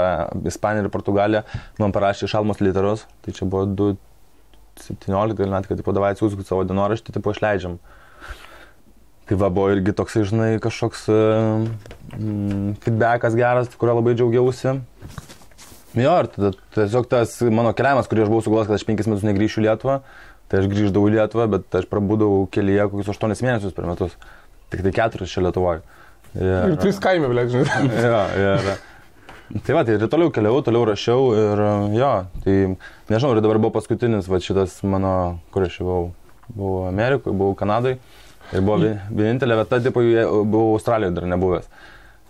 Ispaniją ir Portugaliją, man parašė Šalmos literus. Tai čia buvo 2017 metai, kad, tipo, davai atsiųskit savo dienoraštį, tipo, išleidžiam. Tai va, buvo irgi toksai, žinai, kažkoks feedbackas geras, kurio labai džiaugiausi. Jo, ir tada tiesiog tas mano keliavimas, kurį aš buvau sugalvojęs, kad aš 5 metus negrįšiu į Lietuvą, tai aš grįždavau į Lietuvą, bet aš prabūdavau kelyje kokius 8 mėnesius per metus. Tik tai 4 čia Lietuvoje.
Ir 3 kaime, blėt, žinai.
Jo. Tai va, tai ir toliau keliau, toliau rašiau ir jo, tai nežinau, ir dabar buvo paskutinis, va šitas mano, kur aš buvau Amerikoje, buvau Kanadoje ir buvo vienintelė vieta, tipo, buvau Australijoje dar nebuvęs.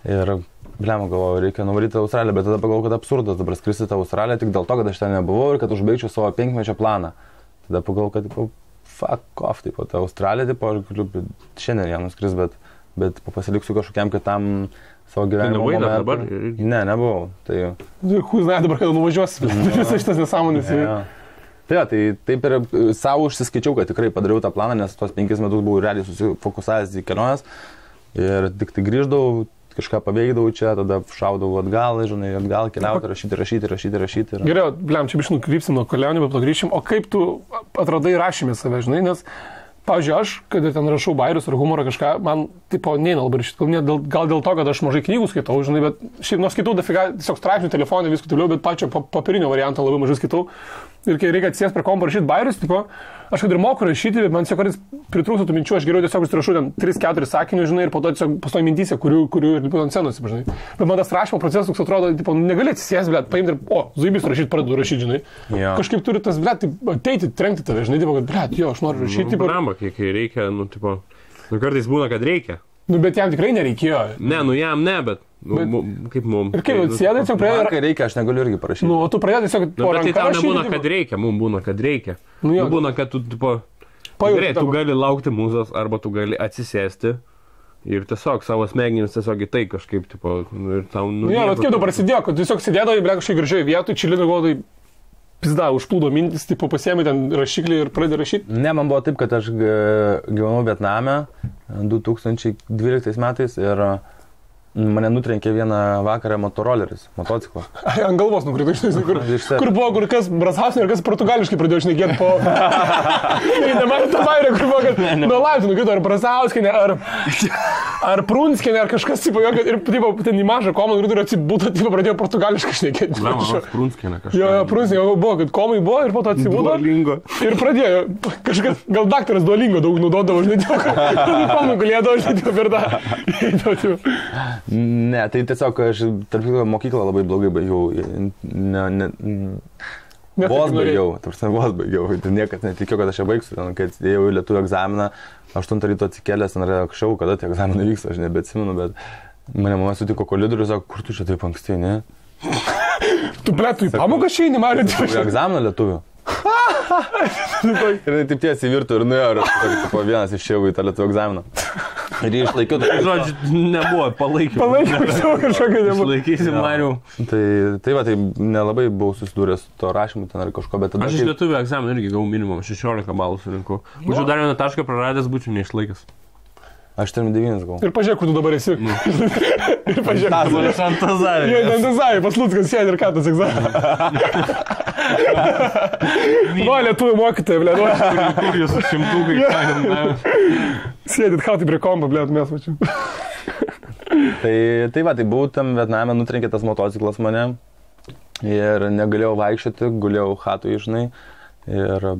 Ir, blema, galvoju, reikia nuvaryti Australiją, bet tada pagalvoju, kad absurdas dabar skristi tą Australiją tik dėl to, kad aš ten nebuvau ir kad užbaigčiau savo 5-mečio planą. Tada pagalvoju, kad, tipo, fuck off, tipo, ta Australija, tipo, aš galiu šiandien ją nuskris, bet pasiliksiu kažkokiam kitam savo gyvenimo momentui.
Tu nebuvai dabar?
Ne, nebuvau. Tai...
Žinai, dabar kada nuvažiuosi, visas šitas nesąmonės.
Tai jo, tai taip ir savo užsiskaičiau, kad tikrai padariau tą planą, nes tuos 5 metus buvau realiai susifokusavęs į keliones ir tik tai grįždavau, kažką paveikdavau čia, tada šaudavau atgal, žinai, atgal keliauti, rašyti.
Gerai, blem, čia biškai nukrypsim nuo kelionių, bet grįšim. O kaip tu atradai rašymę save, žinai, nes, pavyzdžiui, aš, kad ten rašau bairius ar humorą kažką, man, tipo, neina labai rašyti. Gal dėl to, kad aš mažai knygų skaitau, žinai, bet šiaip nors skaitau dafiga, tiesiog straipsnių telefonai, viską toliau, bet pačio papirinio varianto labai mažai skaitau. Ir kai reikia atsės prie kompo rašyti bairius, tipo, aš kad ir moku rašyti, bet man tiesiog kartais pritrūksta tų minčių, aš geriau tiesiog užsirašau ten 3-4 sakinių, žinai, ir po to tiesiog pastoju mintyse, kurių ir ant scenos, žinai. Bet man tas rašymo procesas toks atrodo, tipo, negali atsisės, blėt, paimti ir, zaibys rašyti, pradedu rašyti, žinai. Yeah. Kažkaip turi tas, blėt, ateiti, trenkti tave, žinai, tipo, kad, blėt, jo, aš noriu rašyti.
Nu, bramba, kiek reikia, nu, tipo, nu, kartais būna, kad reikia.
Nu, bet jam tikrai nereikėjo.
Ne, nu, jam ne, bet... Kaip mums.
Ir kaip atsėdai, tiesiog pradėjai...
Kai reikia, aš negaliu irgi parašyti.
Nu, tu pradėjai tiesiog po ranką.
Bet tai tau nebūna, kad reikia, mums būna, kad reikia. Nu, būna, kad tu, tipo, gerai, tu gali laukti mūzos, arba tu gali atsisėsti ir tiesiog savo smegenis tiesiog į tai kažkaip, tipo, ir tau...
Nu, jo, bet kaip tu prasidėjo, kad tu tiesiog sėdėdavai, ble, kažkaip gražiai vietoj, čilinu godai, pizda, užplūdo mintis, tipo, pasiėmė ten rašiklį ir pradėjo rašyti.
Ne, man buvo taip, kad aš gyvenau Vietname 2012 metais ir mane nutrenkė vieną vakarą motoroleris, motociklas.
Ant galvos nukrito, žinai, kur buvo, kur kas Brazauskienė ir kas portugališkai pradėjo šnekėti po... Nematė tą vairę, kur buvo, kad nuo laiptų nukrito ar Brazauskienė, ar Prunskienė, ar kažkas, tipo, ir tipo, ten į mažą komą nukrito ir atsibūdo, tipo, pradėjo portugališkai šnekėti.
Prunskienė kažkas.
Jo, Prunskienė buvo, kad komai buvo ir po to atsibūdo.
Duolingo.
Ir pradėjo, kažkas, gal daktaras Duolingo daug naudodavo, žinai, komai galėdavo, žinai, per tą.
Ne, tai tiesiog aš, tarp kitko, mokyklą labai blogai baigiau. Vos baigiau. Niekad netikėjau, kad aš ją baigsiu. Kai atsidėjau į lietuvių egzaminą, 8 ryto atsikėlęs, ten anksčiau, kada tie egzaminai vyksta, aš nebeatsimenu, bet mane mama sutiko kolidorių ir sako, kur tu čia taip anksti, ne?
Tu, ble, tu į pamoką šeini, Marija?
Egzaminą lietuvių. Ir taip tiesiai virtų ir nuėjo, ir vienas išėjau į tą lietuvių egzaminą. Ir jį išlaikiau.
Žodžiu, nebuvo, palaikiau.
Palaikiau savo kažkokią nebuvo.
Išlaikysim, Mariu.
Tai va, tai nelabai buvau susidūręs su to rašymu ten ar kažko, bet tada...
Aš iš lietuvių egzaminą irgi gavau minimum 16 balų surinkau. Būčiau dar vieną tašką praradęs, būčiau neišlaikęs.
Aš ten 9 gavau.
Ir pažiūrėk, kur tu dabar esi. Ir pažiūrėk.
Aš ant Tazarį.
Jie ant Tazarį, pas Luckas sėdi ir ką tas egzaminas. Va, lietuvių mokytojai, ble.
Kur jūs šimtukai.
Sėdit, ką tai prie kompo, ble, mes mačiau.
Tai va, tai buvau tam Vietname, nutrenkė tas motociklas mane. Ir negalėjau vaikščioti, gulėjau chatui, žinai. Ir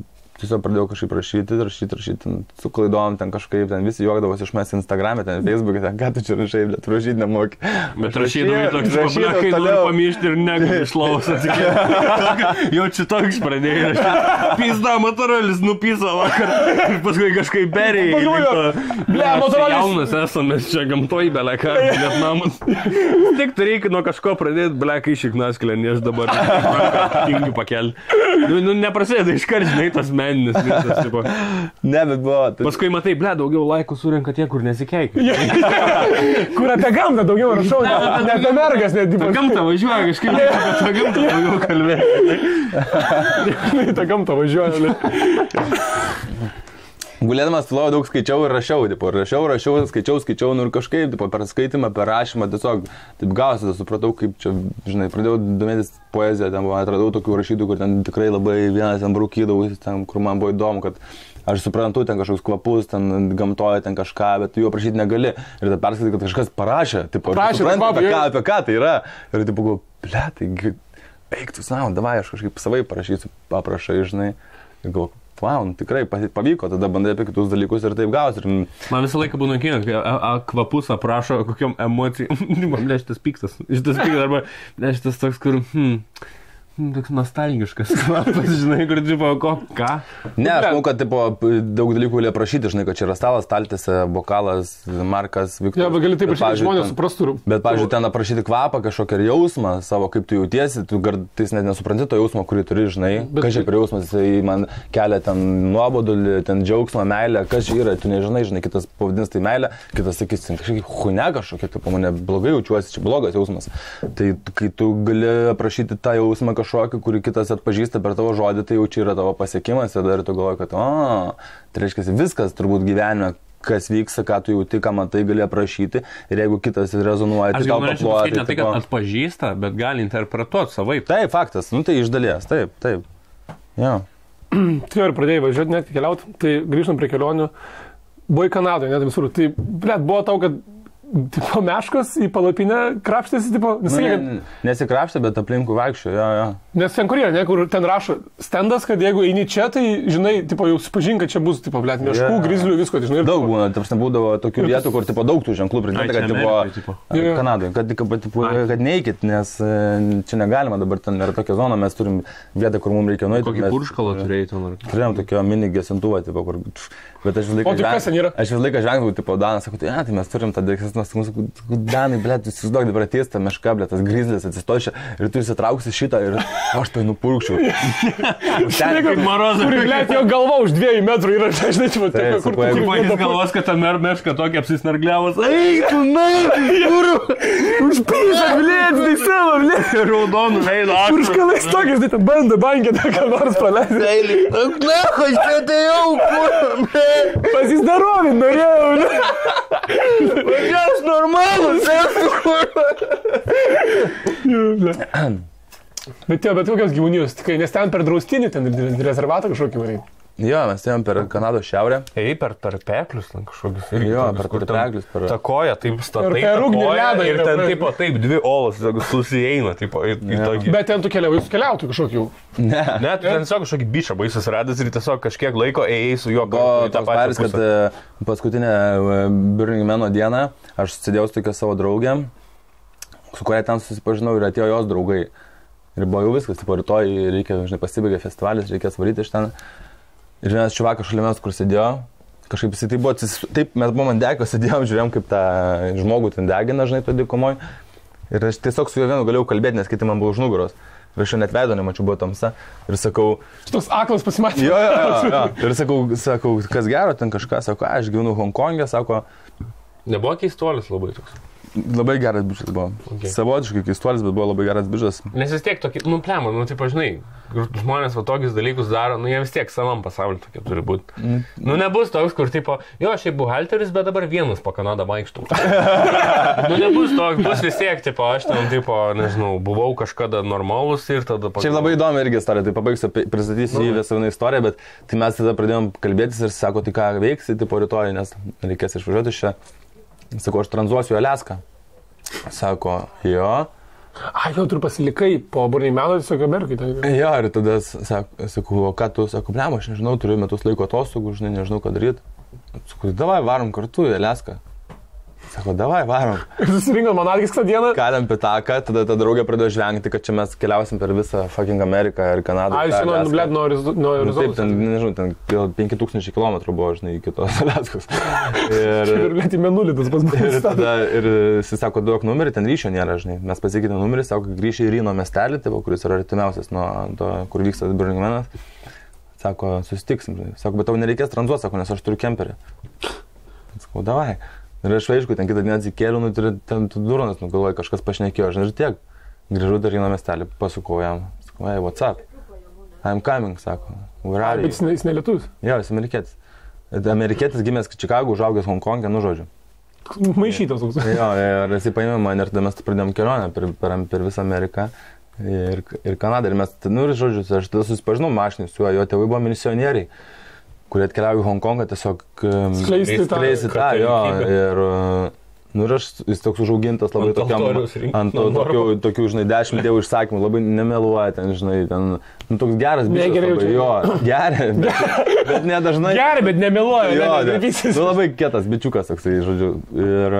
tiesiog pradėjau kažkaip rašyti, su klaidom ten kažkaip, ten visi juokdavosi iš manęs Instagram'e, ten Facebook'e, ten ką tu čia rašai, bet rašyti nemoki.
Bet rašydavai toks pablekai, noriu pamišti ir negaliu iš lovos atsikėti. Jau čia toks pradėjai rašyti. Pizda, Motorolis nupisa vakar ir paskui kažkaip perėjai.
Ble, Motorolis.
Jaunas esame, mes čia gamtoj beleką, Vietnamas. Tik tai reikia nuo kažko pradėti, blekai šiknaskilę, ne aš dabar tingiu pakelti. Nu, neprasideda iškart, žinai, tas meninis visas, tipo.
Ne, bet buvo.
Paskui matai, ble, daugiau laikų surenka tie, kur nesikeikia.
Kur apie gamtą daugiau rašau, ne apie mergas, net
Ta gamtą važiuoja, kažkaip apie tą gamtą daugiau kalbėti.
Ta gamtą važiuoja.
Gulėdamas tyloje daug skaičiau ir rašiau, tipo, skaičiau, nu ir kažkaip, tipo, per skaitimą, per rašymą, tiesiog, taip gausi, supratau, kaip čia, žinai, pradėjau domėtis poeziją, ten atradau tokių rašytų, kur ten tikrai labai vienas ten brūkydavau, ten, kur man buvo įdomu, kad aš suprantu, ten kažkoks kvapus, ten gamtoje, ten kažką, bet tu jo prašyti negali. Ir tada perskaitai, kad kažkas parašė, tipo, apie ką tai yra. Ir tipo, galvoju, ble, tai eik tu savo, davai, aš kažkaip savai parašysiu, paprašai, žinai. Ir galvoju, wow, tikrai pavyko, tada bandai apie kitus dalykus ir taip gausi.
Man visą laiką būna kino, kai kvapus aprašo kokiom emocijom. Man šitas piktas, arba šitas toks, kur, toks nostalgiškas kvapas, žinai, kur, tipo, ką?
Ne, aš manau, kad, tipo, daug dalykų gali aprašyti, žinai, kad čia yra stalas, staltėse, bokalas, markas, Viktoras.
Ja, bet gali taip prašyti, žmonės suprastų.
Bet, pavyzdžiui, ten aprašyti kvapą, kažkokį jausmą savo, kaip tu jautiesi, tu kartais net nesupranti to jausmo, kurį turi, žinai. Kas čia per jausmas, jisai man kelia ten nuobodulį, ten džiaugsmą, meilę, kas čia yra, tu nežinai, žinai, kitas pavadins tai meilę, kitas sakys, kažkaip hunia kažkokia, tipo, mane blogai jaučiuosi, čia blogas jausmas. Tai kai tu gali aprašyti tą jausmą kažkokį, kurį kitas atpažįsta per tavo žodį, tai jau čia yra tavo pasiekimas ir dar tu galvoji, kad tai reiškia viskas turbūt gyvenime, kas vyksta, ką tu jauti, ką matai, gali aprašyti ir jeigu kitas rezonuoja, tai tau paploja.
Aš ne tai, kad atpažįsta, bet gali interpretuoti savaip.
Taip, faktas, nu tai iš dalies, taip. Ja.
Tu ir pradėjai važiuoti, net keliauti, tai grįžtant prie kelionių, buvai Kanadoje, net visur, tai, blėt, buvo tau, kad tipo meškos į palapinę krapštėsi, tipo,
nesikrapštė, bet aplinkų vaikščio, jo.
Nes ten kur yra, ne, kur ten rašo stendas, kad jeigu eini čia, tai, žinai, tipo, jau supažink, kad čia bus, tipo, blėt, meškų, grizlių, visko, tai, žinai.
Daug būna, tarsi būdavo tokių vietų, kur, tipo, daug tų ženklų pridėta, kad, tipo, Kanadoje, kad neikit, nes čia negalima, dabar ten yra tokia zona, mes turim vietą, kur mums reikia nueiti.
Kokį purškalą turėjai ten?
Turėjom tokio mini gesintuvą, tipo, kur... Bet aš vis laiką žengdavau, tipo, Danas, sakau, tai mes turim tą dėksesnos, Danai, blėt, jūs įsivaizduok, dabar ateis ta meška, blėt, tas grizlis atsistošia ir tu įsitrauksi šitą ir aš tai nupurkščiau.
Ten kaip marozas.
Kur, blėt, jo galva už 2 metrų yra, žinai, tipo,
kur jis galvos, kad ta meška tokia apsisnargliavos. Eik, tu, na,
užpysa, blėt, tai savo, blėt.
Raudonų veido.
Purškalais tokiais, tai bando bankė, tą ką nors praleisti.
Na, aš čia tai jau,
pasizdarovint norėjau, ne?
Aš normalus,
Bet kokios gyvūnijos, tikrai, nes ten per draustinį, ten rezervatą kažkokį varai.
Jo, mes ėjom per Kanados šiaurę.
Ei, per peklius, kažkokius.
Jo, per peklius.
Ta koja, taip statai.
Per ugnį ledą.
Ir ten, taip, 2 olos susieina, taip, į tokį.
Bet ten tu keliautų kažkokį.
Ne, ten tiesiog kažkokį bišą baisas radęs ir tiesiog kažkiek laiko ėjai su juo.
Toks paris, kad paskutinę Burning Mano dieną aš sėdėjau su tokia savo draugė, su kuria ten susipažinau ir atėjo jos draugai. Ir buvo jau viskas, tipo, rytoj reikia, žinai, pasibaigė festivalis, reikės varyti iš ten. Ir vienas čiuvakas šalia mes, kur sėdėjo, kažkaip jisai taip buvo, taip mes buvom ant degio, sėdėjom, žiūrėjom, kaip tą žmogų ten degina, žinai, to dykumoj. Ir aš tiesiog su juo vienu galėjau kalbėti, nes kiti man buvo už nugaros. Ir aš jo net veido nemačiau, buvo tamsa. Ir sakau...
Šitos aklas pasimatė.
Jo. Ir sakau, kas gero, ten kažką, sako, aš gyvenu Honkongė, sako...
Nebuvo keistuolis labai toks.
Labai geras bičas buvo. Okay. Savotiškai keistuolis, bet buvo labai geras bičas.
Nes vis tiek tokį, taip, žinai, žmonės va tokius dalykus daro, jie vis tiek savam pasauliu tokie turi būti. Nebus toks, kur, tipo, jo, aš buhalteris, bet dabar vienas po Kanadą vaikštų. Nebus toks, bus vis tiek, tipo, aš ten, tipo, nežinau, buvau kažkada normalus ir tada...
Čia labai įdomi irgi istorija, tai pabaigsiu, pristatysiu į visą vieną istoriją, bet tai mes tada pradėjom kalbėtis ir sako, tai ką veiksi, tipo, rytoj, nes reikės išvažiuoti iš čia. Sako, aš tranzuosiu Aliaską. Sako, jo.
Jau turiu pasilikai po Burning Mano, tiesiog Amerikai.
Jo, ir tada sakau, o ką tu, sakau, blem, aš nežinau, turiu metus laiko atostogų, žinai, nežinau, ką daryti. Sakau, davai, varom kartu į Aliaską. Sako, davai, varom.
Susirinkom Monarkis tą dieną.
Kalėm pitaką, tada ta draugė pradėjo žvengti, kad čia mes keliausim per visą fucking Ameriką ir Kanadą.
Blėd, nuo Arizonos.
Taip, ten, nežinau, ten 5000 km buvo, žinai, iki tos Aliaskos.
Ir blėd į menulį tas pats buvo.
Ir tada, ir jis sako, duok numerį, ten ryšio nėra, žinai. Mes pasikeitėm numerį, sako, grįžti į Ryno miestelį, tai, kuris yra artimiausias nuo to, kur vyksta Burning Manas. Sako, susitiksim. Sako, bet tau nereikės tranzuoti, sako, nes aš turiu kemperį. Sakau, davai. Ir aš aišku, ten kitą dieną atsikėliau, ten duronas, galvoju, kažkas pašnekėjo, žinai, ir tiek. Grįžau dar Ryno miestelį, pasukau jam. Sakau, hey, what's up? I'm coming, sako. Where are you?
Bet jis ne lietuvis?
Jo, jis amerikietis. Amerikietis gimęs Čikagų, užaugęs Honkongė, nu žodžiu.
Maišytas toks.
Jo, ir jis paėmė mane ir tada mes pradėjom kelionę per visą Ameriką ir Kanadą. Ir mes, nu ir žodžiu, aš tada susipažinau mašinį su juo, jo tėvai buvo misionieriai, kurie atkeliavo į Honkongą tiesiog skleisti tą, jo. Ir, nu ir aš, jis toks užaugintas labai ant tokių, žinai, 10 dievų išsakymų, labai nemeluoja ten, žinai, ten, nu toks geras bičias labai, jo, geria, bet nedažnai.
Geria, bet nemeluoja,
jo, nu labai kietas bičiukas toksai, žodžiu. Ir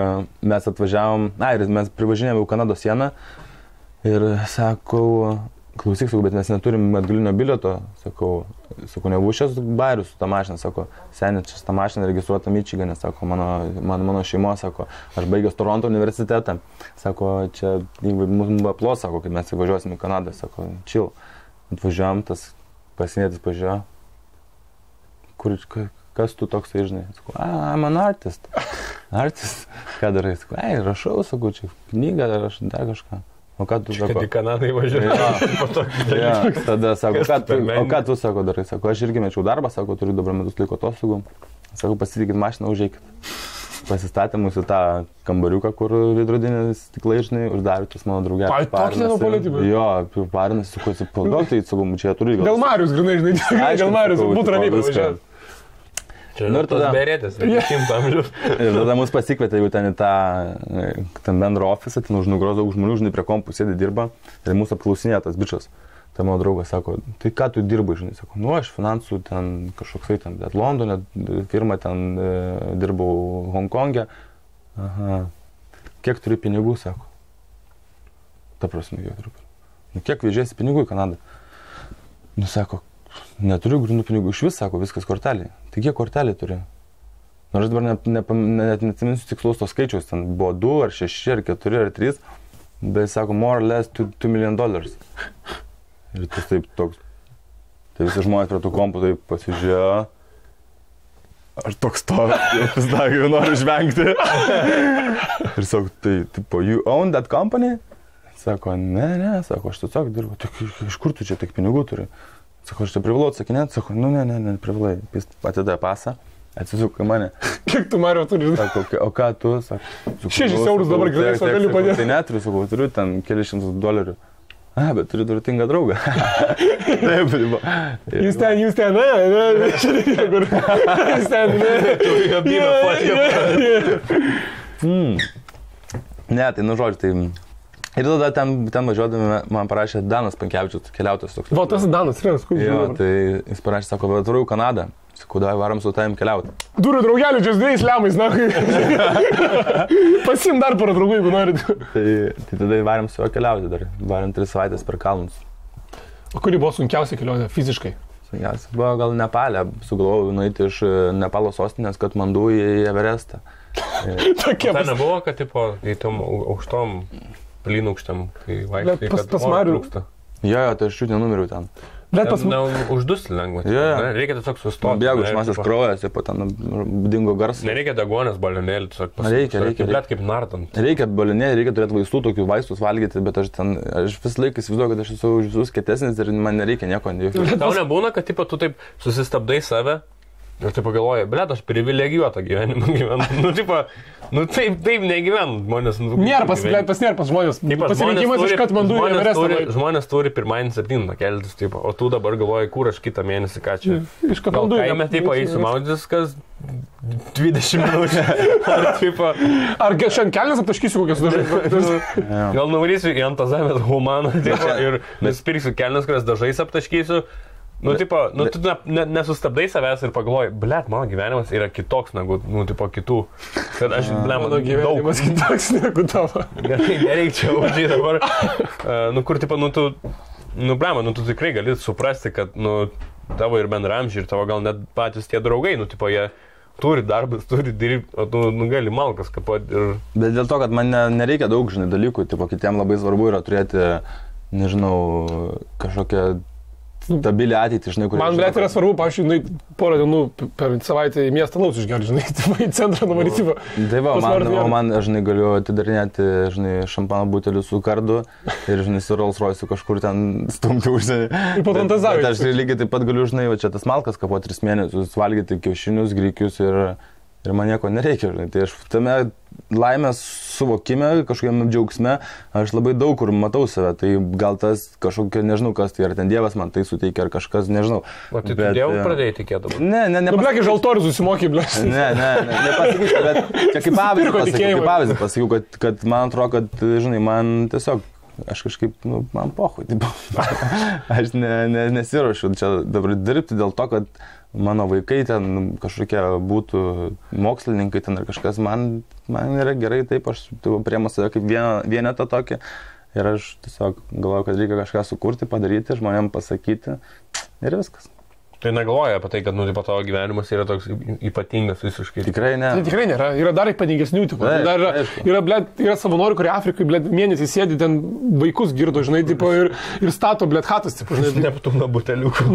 mes atvažiavom, ir mes privažinėjome į Kanados sieną ir sakau, klausyk, sakau, bet mes neturim atgalinio bilieto, sakau, nebuvau šias bairius su tą mašiną, sako, seniai, čia tą mašiną registruota Mičigane, sako, mano šeimo, sako, aš baigęs Toronto universitetą, sako, čia mums aplos, sako, kai mes įvažiuosim į Kanadą, sako, chill, atvažiuojam, tas pasienietis pažiūrėjo, kas tu toks, žinai, sako, I'm an artist, ką darai, sako, rašau, sako, čia knygą, aš dar kažką. O ką tu sako?
Kad į Kanadą įvažiuoju.
Tada sako, o ką tu sako darai? Sako, aš irgi mečiau darbą, sako, turiu dabar metus laiko atostogų. Sako, pasitikit mašiną, užeikit. Pasistatė mūsų tą kambariuką, kur veidrodinės stiklai, žinai, uždarė tas mano draugelis.
Tokį nenupolitybę?
Jo, parinas, sakau, atsipalduok, tai sakau, čia turiu.
Gal Marius, grinai, žinai, gal Marius, būtų ramiai pavažiuoti.
Nu ir tada berėtės, 100 amžiaus.
Ir tada mus pasikvietė jau ten į tą bendrą ofisą, ten už nugaros daug žmonių, žinai, prie kompų sėdi dirba ir mūsų apklausinėja tas bičas. Tai mano draugas sako, tai ką tu dirbai, žinai, sako, nu aš finansų ten kažkoksai ten, bet Londone firma ten dirbau Honkongė. Aha, kiek turi pinigų, sako. Ta prasme, kiek turiu pinigų. Nu kiek vežėsi pinigų į Kanadą? Nu sako, neturiu grindų pinigų, iš vis, sako, viskas kortelė. Tai kiek kortelė turi? Nors dabar net neatsiminsiu tikslaus to skaičiaus, ten buvo 2 ar 6 ar 4 ar 3, bet sako, more or less $2 million. Ir tas taip toks, tai visi žmonės prie tų kompų taip pasižiūrėjo. Aš toks stovi, vis dar jau noriu žvengti. Ir sako, tai, tipo, you own that company? Sako, ne, sako, aš tiesiog dirbu, tai iš kur tu čia tiek pinigų turi? Sako, aš čia privalau atsakinėti, sako, nu ne, privalai. Jis atidavė pasą, atsisuko į mane.
Kiek tu Mario turi?
Sako, o ką tu, sako.
6 eurus dabar grinai, sako, galiu padėti.
Tai neturiu, sako, turiu ten kelius $100. Bet turiu turtingą draugą. Taip,
jūs ten, čia reikia, kur. Jūs ten,
ne, tai nu žodžiu, tai... Ir tada ten važiuodami man parašė Danas Pankevičius, keliautojas toks.
Va, tas Danas, Renas, kur
jo, tai jis parašė, sako, bet turiu Kanadą. Sakau, davai varam su tavim keliauti.
Turiu draugelių, čia 2 lemais, na. Pasim dar porą draugų, jeigu norit.
Tai tada varam su juo keliauti dar. Varam 3 savaitės per kalnus.
O kuri buvo sunkiausia kelionė fiziškai?
Sunkiausia buvo gal Nepalė. Sugalvojau nueiti iš Nepalo sostinės Katmandu į Everestą.
Tokie
tai nebuvo, kad tipo, į tom aukštom plynukštam, kai vaikštai, kad
oro
trūksta.
Jo, tai aš čiut nenumiriau ten.
Bet pas
uždusti lengva. Reikia tiesiog sustoti.
Bėgu iš masės kraujas, po ten dingo garsas.
Nereikia degonės balionėlį, tiesiog
reikia.
Blet kaip nardant.
Reikia balionėlį, reikia turėti vaistų, tokių vaistus valgyti, bet aš vis laiką įsivaizduoju, kad aš esu už visus kietesnis ir man nereikia nieko.
Tau nebūna, kad tipo, tu taip susistabdai save ir taip pagalvoji, blet, aš privilegijuotą gyvenimą gyvenu. Taip negyvenu, žmonės.
Nėra pas žmonės. Pasirinkimas iš Katmandu į Everestą.
Žmonės turi pirmadienį 7 keltis, o tu dabar galvoji, kur aš kitą mėnesį, ką čia.
Iš Katmandu.
Kaime taip eisiu maudytis, kas 20 minučių.
Ar šiandien kelnes aptaškysiu kokias dažais?
Gal nuvarysiu į Antazavės humaną ir nusipirksiu kelnes, kurias dažais aptaškysiu. Nu, tu nesustabdai savęs ir pagalvoji, blet, mano gyvenimas yra kitoks negu, kitų. Kad aš,
mano gyvenimas kitoks negu tavo.
Nereikia užžiai dabar. Tu tikrai gali suprasti, kad, tavo ir bendramžiai, ir tavo gal net patys tie draugai, jie turi darbas, turi dirbti, o tu gali malkas kapoti ir...
Bet dėl to, kad man nereikia daug, dalykų, kitiem labai svarbu yra turėti, nežinau, kažkokią stabilią ateitį, žinai, kur...
Man, blėt, yra svarbu, pavyzdžiui, porą dienų per savaitę į miestą laus išgerti, žinai, į centrą nuvaryti.
Tai va, man, žinai, galiu atidarinėti, žinai, šampano butelių su kardu ir, žinai, su Rolls Royce kažkur ten stumti užsienį.
Ir po fantazavimą.
Bet aš lygiai taip pat galiu, žinai, va čia tas malkas kapo 3 mėnesius, valgyti kiaušinius, grikius ir man nieko nereikia, žinai. Tai aš tame laimės suvokime, kažkokiam džiaugsme, aš labai daug kur matau save. Tai gal tas kažkokia, nežinau kas tai, ar ten Dievas man tai suteikia, ar kažkas, nežinau.
O tai tu Dievui pradėjai tikėti?
Ne.
Blėki, žaltorius susimokė, blėki.
Nepasakysiu, bet čia kaip pavyzdį pasakiau, kad man atrodo, kad, žinai, man tiesiog, aš kažkaip, man pohui, aš nesiruošiu čia dabar dirbti dėl to, kad mano vaikai ten kažkokie būtų mokslininkai ten ar kažkas, man yra gerai taip, aš priemu save kaip vienetą tokį ir aš tiesiog galvoju, kad reikia kažką sukurti, padaryti, žmonėm pasakyti ir viskas.
Tai negalvoja apie tai, kad, tavo gyvenimas yra toks ypatingas visiškai.
Tikrai ne.
Tai tikrai nėra. Yra dar ypatingesnių tikų. Yra savanorių, kurie Afrikai, mėnesį sėdi, ten vaikus girdo, žinai, ir stato, hatas, žinai.
Neptūno buteliukų.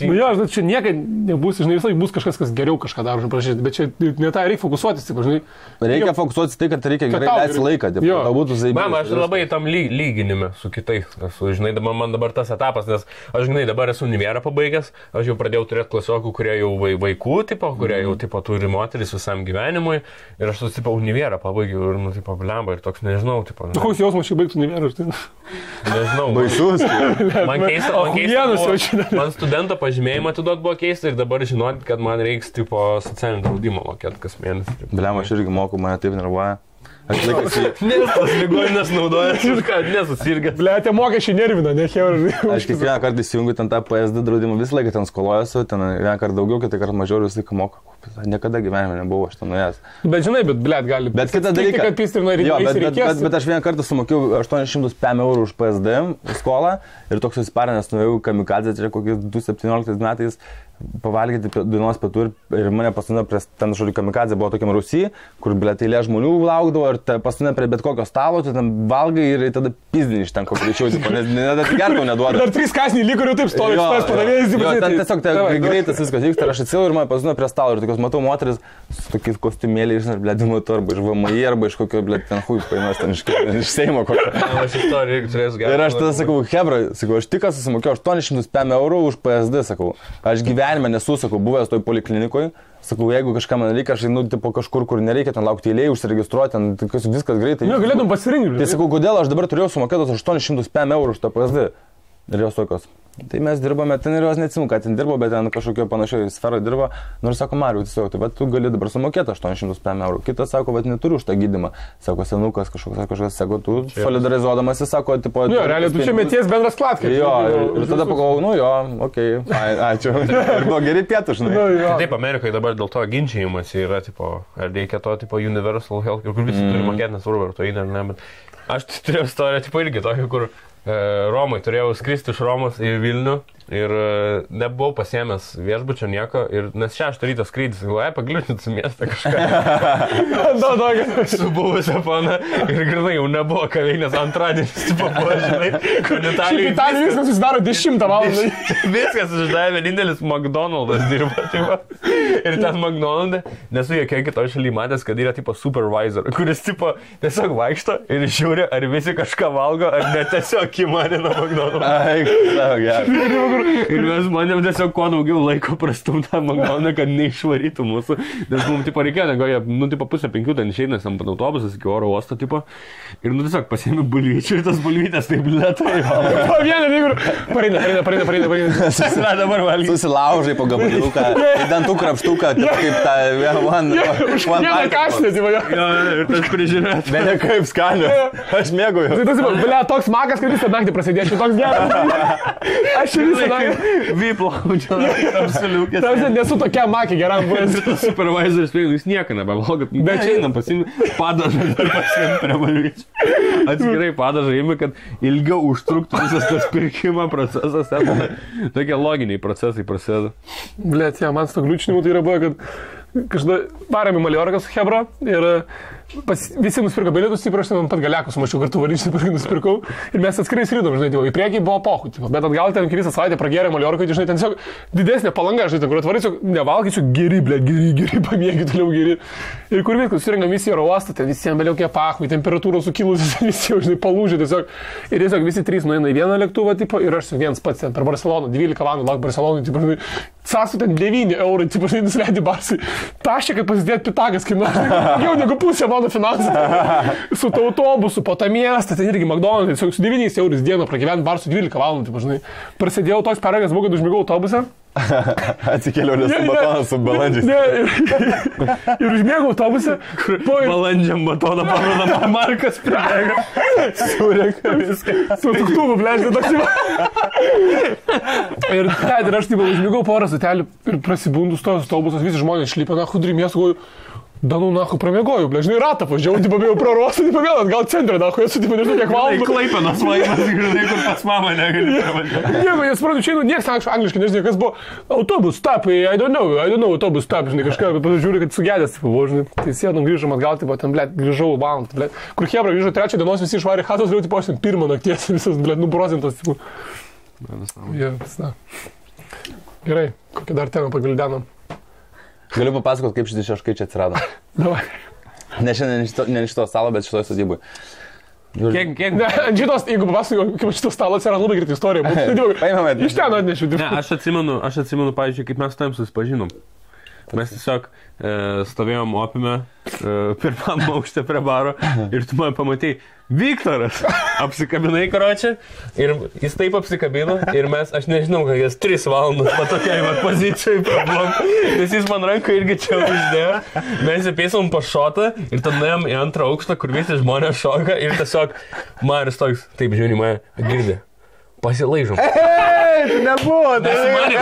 Jo, čia niekada nebus, žinai, visai bus kažkas, kas geriau kažką daro, žinai, bet čia ne tai reikia fokusuotis, žinai.
Reikia fokusuotis tai, kad reikia gerai leisti laiką.
Mama, aš labai tam lyginime su kitais. Žinai, man dabar tas etapas, nes aš, žinai, dabar esu univerą pabaigęs, aš jau pradėjau turėti klasiokų, kurie jau vaikų, kurie jau turi moteris visam gyvenimui ir aš univerą pabaigiau ir, blemba, ir toks, nežinau,
Koks jausmas šį baigti univerą, aš tai...
Nežinau.
Baisus.
Man keista, man studento pažymėjimą atiduot buvo keista ir dabar žinoti, kad man reiks, socialinį draudimą mokėti kas mėnesį.
Blemba, aš irgi moku, mane taip nervuoja. Aš laikas
Nes tas ligoninės naudojas ir ką, nesusirgęs.
Blėtė, mokesčiai nervina, ne cheurai.
Aš kiekvieną kartą įsijungiu ten tą PSD draudimą, visą laiką ten skolojuosi, ten vieną kartą daugiau, kitą kartą mažiau ir visą laiką moku. Niekada gyvenime nebuvau aš ten nuėjęs.
Bet žinai, blėt gali.
Bet kitą dalyką, bet aš vieną kartą sumokėjau 800 eurų už PSD skolą ir toks susiparinęs nuėjau kamikadzę, čia kokiais 2017 metais pavalgyti dienos pietų ir mane pastumė prie ten žodžiu kamikadzė buvo tokiam Rusijai, kur eilė žmonių laukdavo ir pastumė prie bet kokio stalo, tu ten valgai ir tada pizdini iš ten kokio greičiau, nes net gertau neduoda.
Dar 3 kąsniai liko ir jau taip stovi, tas padavėjas.
Ten tiesiog greitas viskas vyksta ir aš atsilau ir mane pastumė prie stalo ir tokios matau moteris su tokiais kostiumėliais ir blėdimo arba iš VMI arba iš kokio ten huijus paimės ten iš Seimo kokio. Ir aš tada sakau, hebra, aš tik susimokėjau 800 eurų už PSD, sakau. Aš gyvenime nesu, sakau, buvęs toj poliklinikoj. Sakau, jeigu kažką man reikia, aš einu kažkur, kur nereikia ten laukti eilėje, užsiregistruoti, ten viskas greitai.
Ne, galėtum pasirinkti.
Tai sakau, kodėl aš dabar turėjau sumokėtos 800 eurų už tą PSD. Ir jos tokios. Tai mes dirbame, ten ir jos neatsimu, kad ten dirbo, bet ten kažkokio panašioje sferoje dirbo. Nors sako, Mariu, tiesiog, tai bet tu gali dabar sumokėti 800 eurų. Kitas sako, bet neturiu už tą gydymą. Sako, senukas kažkoks, sako, tu solidarizuodamasi, sako, tipo...
Jo, realiai tu čia meties bendras klatkai.
Jo, ir tada pagalvojau, jo, okei, ačiū. Ir buvo geri pietų, žinai.
Taip, Amerikoje dabar dėl to ginčijimas yra, tipo, ar reikia to, tipo, universal health, kur visi turi mokėti, nesvarbu, ar to eina ar ne, bet aš turėjau istoriją, tipo, irgi tokį, kur Romai turėjau skristi iš Romos į Vilnių ir nebuvau pasiėmęs viešbučio nieko, nes 6 ryto skrydis, galvoju, pagliūtinti su miestą kažką. Su buvusią pana ir grinai jau nebuvo kaveinės antradienis, tipo, žinai, kur Italijai
viskas susidaro 10 valandą.
Viskas susidaro, vienintelis McDonald's dirba, tipo. Ir ten McDonald's, nesu jokia kitoje šalyje matęs, kad yra tipo supervisor, kuris tipo tiesiog vaikšto ir žiūri, ar visi kažką valgo, ar ne tiesiog įmanina McDonald's. Ir mes manėm tiesiog kuo daugiau laiko prastumtam Makdonaldą, kad neišvarytų mūsų. Nes mums tipo reikėjo, tipo 4:30 ten išeinės ant autobusas iki oro uosto, tipo. Ir tiesiog pasiėmė bulvyčių ir tas bulvytės taip lėtai.
Po vieną lygų. Pareina.
Susilaužai po gabaliuką, dantų krapštuką, kaip tą
vieną kašlį, tipo.
Ir tas prižiūrėt.
Bet ne kaip skaniu. Aš mėgauju.
Tai tas, toks magas, kad visą naktį prasidėčiau, toks geras. Aš visą naktį.
Vyplaudžia, apsiliukės.
Tavs nesu tokia makė geram buvęs.
Supervisoris spėjau, jūs nieko nebevalgot. Bet čia einam pasimti padažą ir pasimti prie bulvyčių. Atskirai padažą įmi, kad ilgiau užtruktų visas tas pirkimo procesas. Tokie loginiai procesai prasideda.
Blet, man su to gliučinimu tai yra buvo, kad kažkada varėm į Maliorką su Hebra ir visi nusipirko bilietus, taip aš ten pat galiakus mačiau kartu varyčių, nusipirkau ir mes atskirai skridom, žinai, į priekį buvo pochų, bet atgal ten visą savaitę pragėrė Maliorką, žinai, ten tiesiog didesnė palanga, žinai, ten kur atvarysiu, nevalgysiu, geri, pamėgi toliau geri. Ir kur viskas, susirinkam visi oro uostą, ten visiems beliaukia pachų, temperatūros sukilusios, visi, žinai, palūžė tiesiog. Ir tiesiog visi trys nueina į vieną lėktuvą, tipo, ir aš vienas pats ten per Barceloną, 12 valandų lauk Barcelonui, tipo, žinai, sąstų ten 9 eurų, tipo, žinai, nusileidė Barsai. Tašė, kad pasidėt pitagas, kai jau negu pusė mano finansų. Su autobusu po tą miestą, ten irgi McDonald's, su 9 eurų dieną pragyventi Barsų 12 valandų, tipo, žinai. Prasidėjau toks paragas, buvo, kad užmigau autobusą.
Atsikėliau, nes batonas su balandžiais.
Ir užmėgau autobusą.
Balandžiam batoną parodama Markas pribėga. Sureka viską.
Su tuktuvu, blėždė, toks jau. Ir aš taip užmėgau porą sutelių ir prasibundus tos autobusas, visi žmonės šlypė, na, hudri miestų, goju. Danų, nahu, pramėgoju, blėžnai ratą pažiūrėjau, tipo, bėjau prarostą, tipo, vėl atgal centrą, nahu, esu, tipo, nežinau, kiek valandų.
Klaipenos vaimas, žinai, kur pas mamą negali pravažiuoti.
Nieko, jis pradėjo čia, niekas angliškai nežinai, kas buvo. Autobus stop, I don't know, autobus stop, žinai, kažką, pasižiūrėjau, kad sugedęs, tipo, buvo, žinai. Tai sėdom, grįžom atgal, tipo, ten, blėt, grįžau valandą, blėt. Kur Hebra grįžo 3 dienos, visi išvarė chatos, vėl, tipo, aš ten 1 nakties, visas, blėt, nuprozintas, tipo. Gerai, kokią dar temą pagvildenom.
Galiu papasakot, kaip šitie šaškai čia atsirado.
Davai.
Ne šiandien ne iš to stalo, bet šitoje sodyboje.
Kiek?
Ne, šitos, jeigu papasakoju, kaip šitos stalo atsirado, labai greita istorija.
Paimame.
Iš ten atnešiu.
Ne, aš atsimenu, pavyzdžiui, kaip mes tam susipažinom. Mes tiesiog stovėjom opime pirmam aukšte prie baro ir tu man pamatei, Viktoras apsikabinai, karočią, ir jis taip apsikabino ir aš nežinau, kad jis 3 valandas patokiai pozicijai prablom, nes jis man ranką irgi čia uždėjo, mes įpėsom po šotą ir tada nuėjom į 2 aukštą, kur visi žmonės šoka ir tiesiog Marius toks, taip žiūri mane, girdė. Pasilaižom.
Tai nebuvo.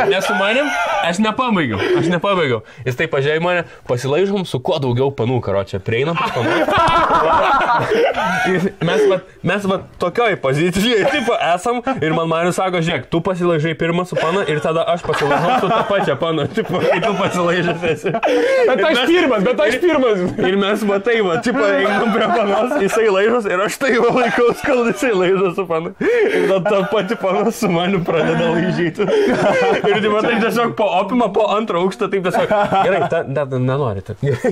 Nesumanėm, aš nepabaigiau. Jis taip pažiūrėjo mane, pasilaižom su kuo daugiau panų, karočią. Prieinam pas panų. Mes tokioj pozicijai tipo esam ir man Marius sako, žiūrėk, tu pasilaižai pirmą su pana ir tada aš pasilaižau su tą pačią paną. Tipo, kai tu pasilaižęs esi.
Bet aš pirmas.
Ir mes tipo, einam prie panos, jisai laižos ir aš tai laikaus, kol jisai laižos su pana. Ir tada pati panas su maniu pradeda laižyti. Ir tai tiesiog po opimą, po 2 aukštą, taip tiesiog, gerai, nenori.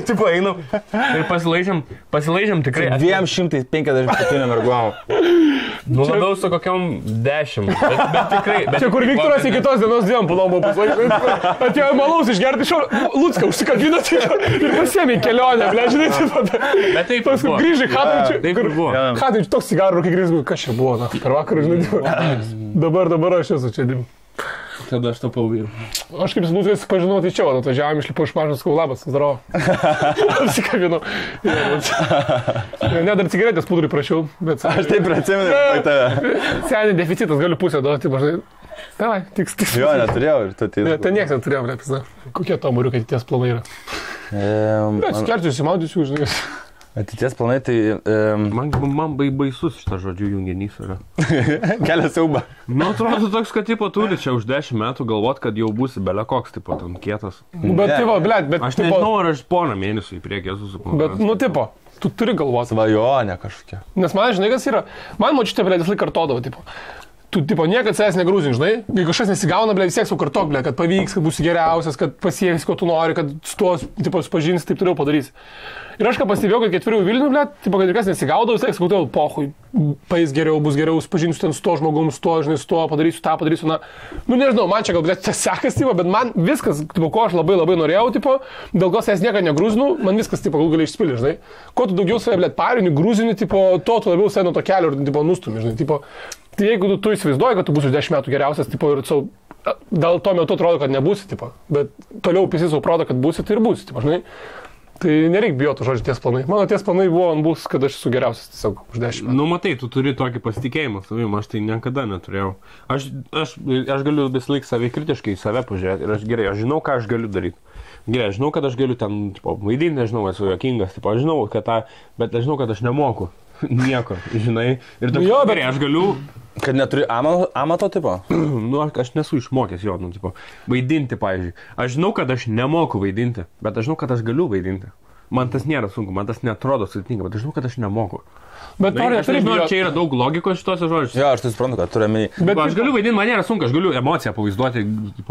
Tipo, einam ir pasilaižėm tikrai.
257 merguom.
Nu, labiau su kokiam 10. Bet tikrai.
Čia kur Viktoras iki tos dienos dviem palom buvo pasilaižęs. Atėjo malaus išgerti iš Lucką, užsikabino ir pasiėmė į kelionę, ble, žinai,
bet taip buvo.
Grįžai Hatai,
taip buvo.
Hatai, toks cigarų, kai grįžai, kas čia buvo, per vakarą, žinai, dabar aš esu čia.
Tada aš tapau vyru.
Aš kaip Luckas pažinau, tai čia, atvažiavom, išlipau iš mažos, sakau, labas, zdarau. Apsikabinau. Ne, dar cigaretės pudrui prašiau, bet...
Aš taip atsimenu tave.
Seniai deficitas, galiu pusę duoti, mažai. Davai, tiks.
Jo, neturėjau ir tu tai...
Ten nieks neturėjau, nepizna. Kokie to muriukai ateities planai yra? Skerčiu, įsimaudysiu, žinai.
Ateities planai, tai...
Man baisus šitas žodžių junginys yra.
Kelia siaubą.
Nu, atrodo toks, kad tipo turi čia už 10 metų galvot, kad jau būsi belekoks, tipo, ten kietas.
Bet, tipo, blėt, bet...
Aš nežinau, ar aš porą mėnesių į priekį esu suplanuojęs.
Bet, nu, tipo, tu turi galvoti.
Svajonė kažkokia.
Nes man, žinai, kas yra... Man močiutė, blėt, vis laik kartodavo, tipo... Tu, tipo, niekad savęs negrūzin, žinai, jeigu kažkas nesigauna, ble, vis tiek sukartok, ble, kad pavyks, kad būsi geriausias, kad pasieks, ko tu nori, kad su tuo, tipo, supažinsi, taip toliau padarysi. Ir aš ką pastebėjau, kad 4 Vilnių, ble, tipo, kad ir kas nesigaudavo, vis tiek sakau, pohui, paės geriau, bus geriau, supažinsiu ten su to žmogum, su to, žinai, su to, padarysiu tą, padarysiu, na, nu nežinau, man čia gal tas sekas, tipo, bet man viskas, tipo, ko aš labai labai norėjau, tipo, dėl ko aš nieko negrūzinu, man viskas, tipo, gal gali išspilti, žinai. Kuo tu daugiau save, blėt, parini, grūzini, tipo, to tu labiau save nuo to kelio ir, tipo, nustumi, žinai, tipo, tai jeigu tu įsivaizduoji, kad tu būsi 10 metų geriausias, tipo, ir dėl to metu atrodo, kad nebūsi, tipo, bet toliau pisi savo proto, kad būsi, tai ir būsi, tipo, žinai. Tai nereik bijoti žodžiu ties planai. Mano ties planai bus, kad aš esu geriausias tiesiog už 10 metų.
Nu, matai, tu turi tokį pasitikėjimą savim, aš tai niekada neturėjau. Aš galiu visą laiką savikritiškai į save pažiūrėti ir aš žinau, ką aš galiu daryti. Gerai, aš žinau, kad aš galiu ten, tipo, vaidinti, nežinau, esu juokingas, tipo, aš žinau, bet aš žinau, kad aš nemoku nieko, žinai. Ir toks, jo, gerai, aš galiu...
Kad neturi amato tipo?
Nu, aš nesu išmokęs jo, nu, tipo, vaidinti, pavyzdžiui. Aš žinau, kad aš nemoku vaidinti, bet aš žinau, kad aš galiu vaidinti. Man tas nėra sunku, man tas netrodo sudėtinga, bet aš žinau, kad aš nemoku.
Bet
aš nežinau, čia yra daug logikos šitose žodžiuose.
Jo, aš tai suprantu, kad turiu omeny.
Bet aš galiu vaidinti, man nėra sunku, aš galiu emociją pavaizduoti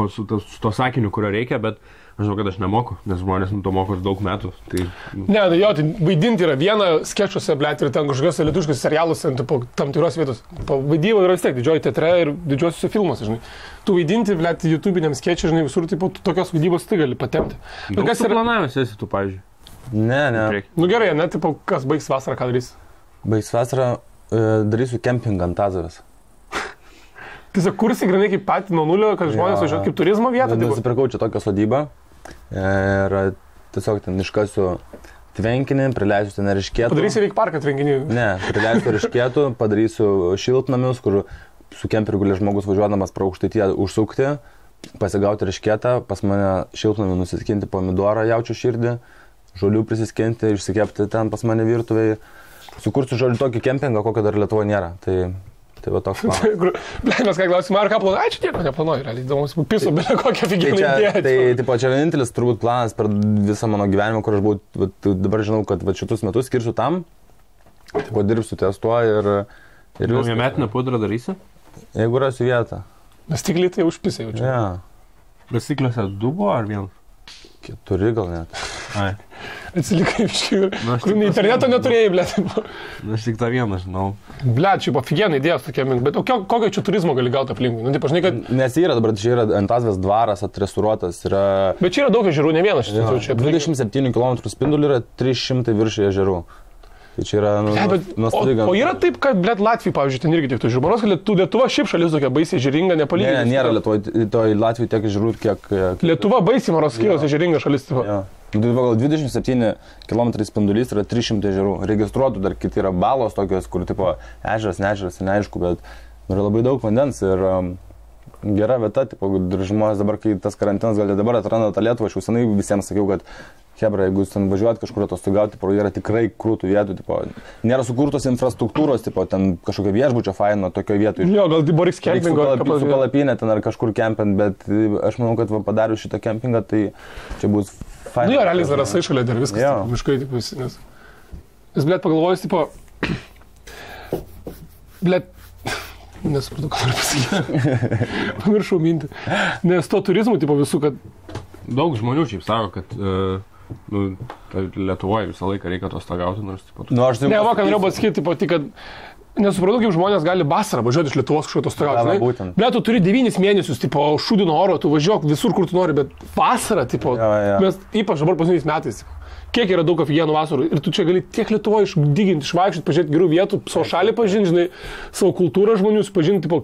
su to sakiniu, kurio reikia, bet aš žinau, kad aš nemoku, nes žmonės to moko daug metų. Tai...
Ne, tai jo, tai vaidinti yra viena skečuose, blėt, ir ten kažkokiuose lietuviškose serialuose, tam tikros vietos. Vaidyba yra vis tiek didžioji teatre ir didžiosiuose filmuose, žinai. Tu vaidinti, blėt, YouTube'iniam skečui, žinai, visur, tipo, tokios vaidybos tai gali patempti.
Bet kas yra planavimas esi tu, pavyzdžiui?
Ne.
Nu gerai, ne, tipo, kas baigs vasarą, ką darys?
Baigs vasarą, darysiu kempingą ant Azovės.
Tiesiog kursi grinai kaip patį nuo nulio, kad žmonės važiuoja kaip turizmo vietą.
Nusipirkau čia tokią sodybą ir tiesiog ten iškasiu tvenkinį, prileisiu ten eriškėtų.
Padarysi veik parką tvenkinį?
Ne, prileisiu eriškėtų, padarysiu šiltnamius, kur su kemperiu gali žmogus važiuodamas pro Aukštaitiją užsukti, pasigauti eriškėtą, pas mane šiltnamį nusiskinti pomidorą, jaučiu širdį, žolių prisiskinti, išsikepti ten pas mane virtuvėje. Sukursiu žodžiu tokį kempingą, kokio dar Lietuvoje nėra. Tai va toks planas.
Mes ką klausim, ar ką planuoji? Ai, čia nieko neplanuoju, realiai. Įdomus, piso, bet kokią figūrą idėją.
Tai čia vienintelis turbūt planas per visą mano gyvenimą, kur aš buvau, dabar žinau, kad šitus metus skirsiu tam, tipo dirbsiu ties tuo ir
Naujametinę pudrą darysi?
Jeigu rasiu vietą.
Nes stikliai tai užpisai jaučiu.
Ja.
Bet stikliuose 2 buvo ar 1?
4 gal net.
Ai.
Atsilikai iškiai. Kur interneto neturėjai, blėt.
Aš tik tą vieną žinau.
Blėt, čia buvo figienai idėjos tokie mink, bet kokio čia turizmo gali gauti aplinkui? Nu, tai pažinai, kad...
Nes yra dabar, čia yra Antazvės dvaras atrestauruotas, yra...
Bet čia yra daug ežerų, ne vienas šitas jau čia.
27 km spindulių yra 300 virš ežerų. Tai čia yra nuostabi gamta.
O yra taip, kad, blėt, Latvijai, pavyzdžiui, ten irgi tiek tų žmonos, kad Lietuva šiaip šalis tokia baisiai ežeringa, nepalyginti.
Ne, nėra Latvijai tiek ežerų, kiek...
Lietuva baisiai Maroskijos ežeringa šalis.
Ja. Gal 27 km spindulys yra 300 ežerų. Registruotų dar kiti yra balos tokios, kur tipo ežeras, neežeras, neaišku, bet yra labai daug vandens ir gera vieta, tipo, žmonės dabar, kai tas karantinas gal dabar atranda tą Lietuvą, aš jau senai visiems sakiau, kad hebra, jeigu jūs ten važiuojat kažkur atostogauti, yra tikrai krūtų vietų, tipo, nėra sukurtos infrastruktūros, tipo, ten kažkokia viešbučio faino tokioje vietoje.
Jo, gal Boris kempingo.
Su palapinė ten ar kažkur kempint, bet aš manau, kad padarius šitą kempingą, tai čia bus faina.
Nu jo, realiai zarasai šalia dar viskas, tipo, miškai, tipo, nes, blėt, pagalvojus, tipo, blėt, nesupratau, ką noriu pasakyti. Pamiršau mintį. Nes to turizmų, tipo, visų, kad...
Daug žmonių šiaip sako, kad Lietuvoje visą laiką reikia atostogauti, nors tipo...
Ne, va, ką norėjau pasakyti, tipo, tik, kad nesupratau, kaip žmonės gali vasarą važiuoti iš Lietuvos kažkur atostogauti. Bet tu turi 9 mėnesius, tipo, šūdino oro, tu važiuok visur, kur tu nori, bet vasarą, tipo, mes ypač dabar paskutiniais metais, kiek yra daug afigienų vasarų ir tu čia gali tiek Lietuvoje išdyginti, išvaikščioti, pažiūrėti gerų vietų, savo šalį pažinti, žinai, savo kultūrą žmonių pažinti, tipo,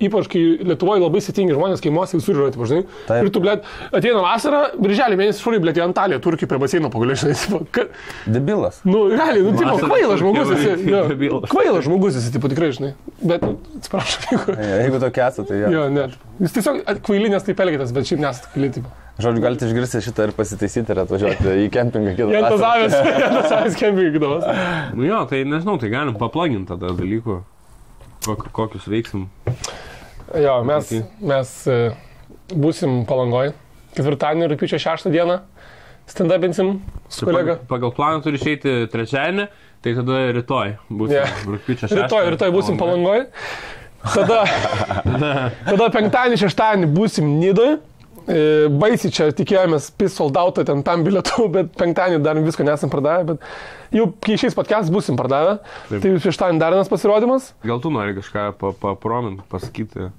ypač kai Lietuvoje labai sėtingi žmonės, kaimuose visur yra, tipo, žinai. Ir tu, blėt, ateina vasarą, birželį mėnesį šūrai, blėt, į Antaliją, Turkiją prie baseino pagaliau, žinai, tipo,
Debilas.
Nu, realiai, nu, tipo, kvailas žmogus esi, kvailas žmogus esi, tipo, tikrai, žinai, bet, atsiprašau,
jeigu tokia esate, tai
jo, net. Jis tiesiog kvailinės taip elgėtas, bet šiaip nesat kvaili, tipo.
Žodžiu, galite išgirsti šitą ir pasitaisyti ir atvažiuoti į kempingą kitą.
Jantazavės kempingą kitos.
Nu jo, tai nežinau, tai galim paplaginti tada dalykų, kokius veiksim.
Jo, mes būsim Palangoj, ketvirtadienį, rugpjūčio 6 dieną, stand-upinsim su kolega.
Pagal planą turi išeiti trečiadienį, tai tada rytoj būsim rugpjūčio 6.
Rytoj būsim Palangoj. Tada penktadienį, šeštadienį būsim Nidoj. baisiai čia tikėjomės pisoldautą ten tam bilietų, bet penktadienį dar visko nesam pardavę, bet jau kai išeis podcastas busim pardavę. Taip. Tai šeštadienį dar vienas pasirodymas.
Gal tu nori kažką papromint, pasakyti?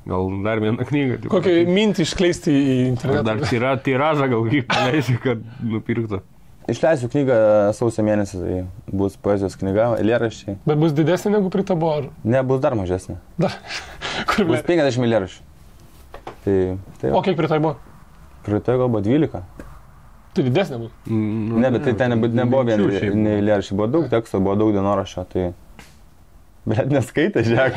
Gal dar vieną knygą?
Kokią mintį iškleisti į internetą?
Dar tiražą gal kaip paleisi, kad nupirktų.
Išleisiu knygą sausio mėnesį, tai bus poezijos knyga, eilėraščiai.
Bet bus didesnė negu pritabo, ar?
Ne, bus dar mažesnė.
Dar?
Bus 50 eilėraščių. Tai
o kiek pritabo?
Pritabo buvo 12.
Tai didesnė bus?
Ne, bet tai ten nebuvo vien eilėraščiai, buvo daug teksto, buvo daug dienoraščio, tai... Bet neskaitė, žiūrėk.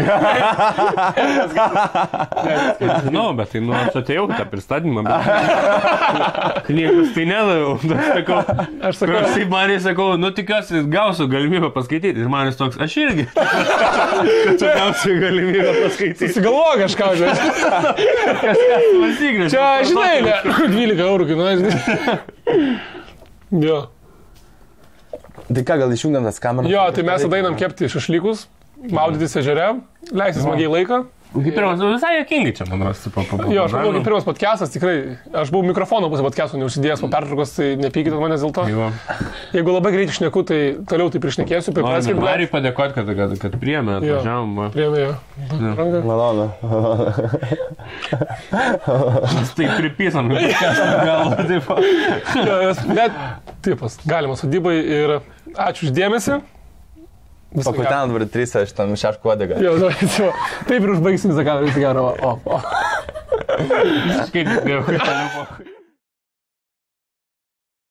Žinau, bet tai aš atėjau tą pristatymą, bet knygos tai nedaviau. Aš sakau, tikiuosi, gausiu galimybę paskaityti. Ir manis toks, aš irgi. Kad gausiu galimybę paskaityti.
Susigalvoju kažką, žinai. Čia, žinai, 12 eurų kainuoja. Jo.
Tai ką, gal išjungiam tas kameras?
Jo, tai mes tada einam kepti šašlykus. Maudytis ežere, leisti smagiai laiką.
Kaip pirmas, visai jokingai čia, man rosi.
Jo, aš manau, kaip pirmas podcastas, tikrai, aš buvau mikrofono pusę podcastų neužsidėjęs po pertraukos, tai nepykite manęs dėl to. Jo. Jeigu labai greitai šneku, tai toliau tai prišnekėsiu.
Noriu padėkoti, kad priėmė, atvažiavom.
Priėmė, jo.
Malonu.
Tai pripysam, galvo,
taip. Bet, tipas, galima sodybai ir ačiū uždėmesi.
Pakutenant dabar 3, aš tam šeškų odegą.
Jo, taip ir užbaigsim visą kamerą, visą gerą.
Kaip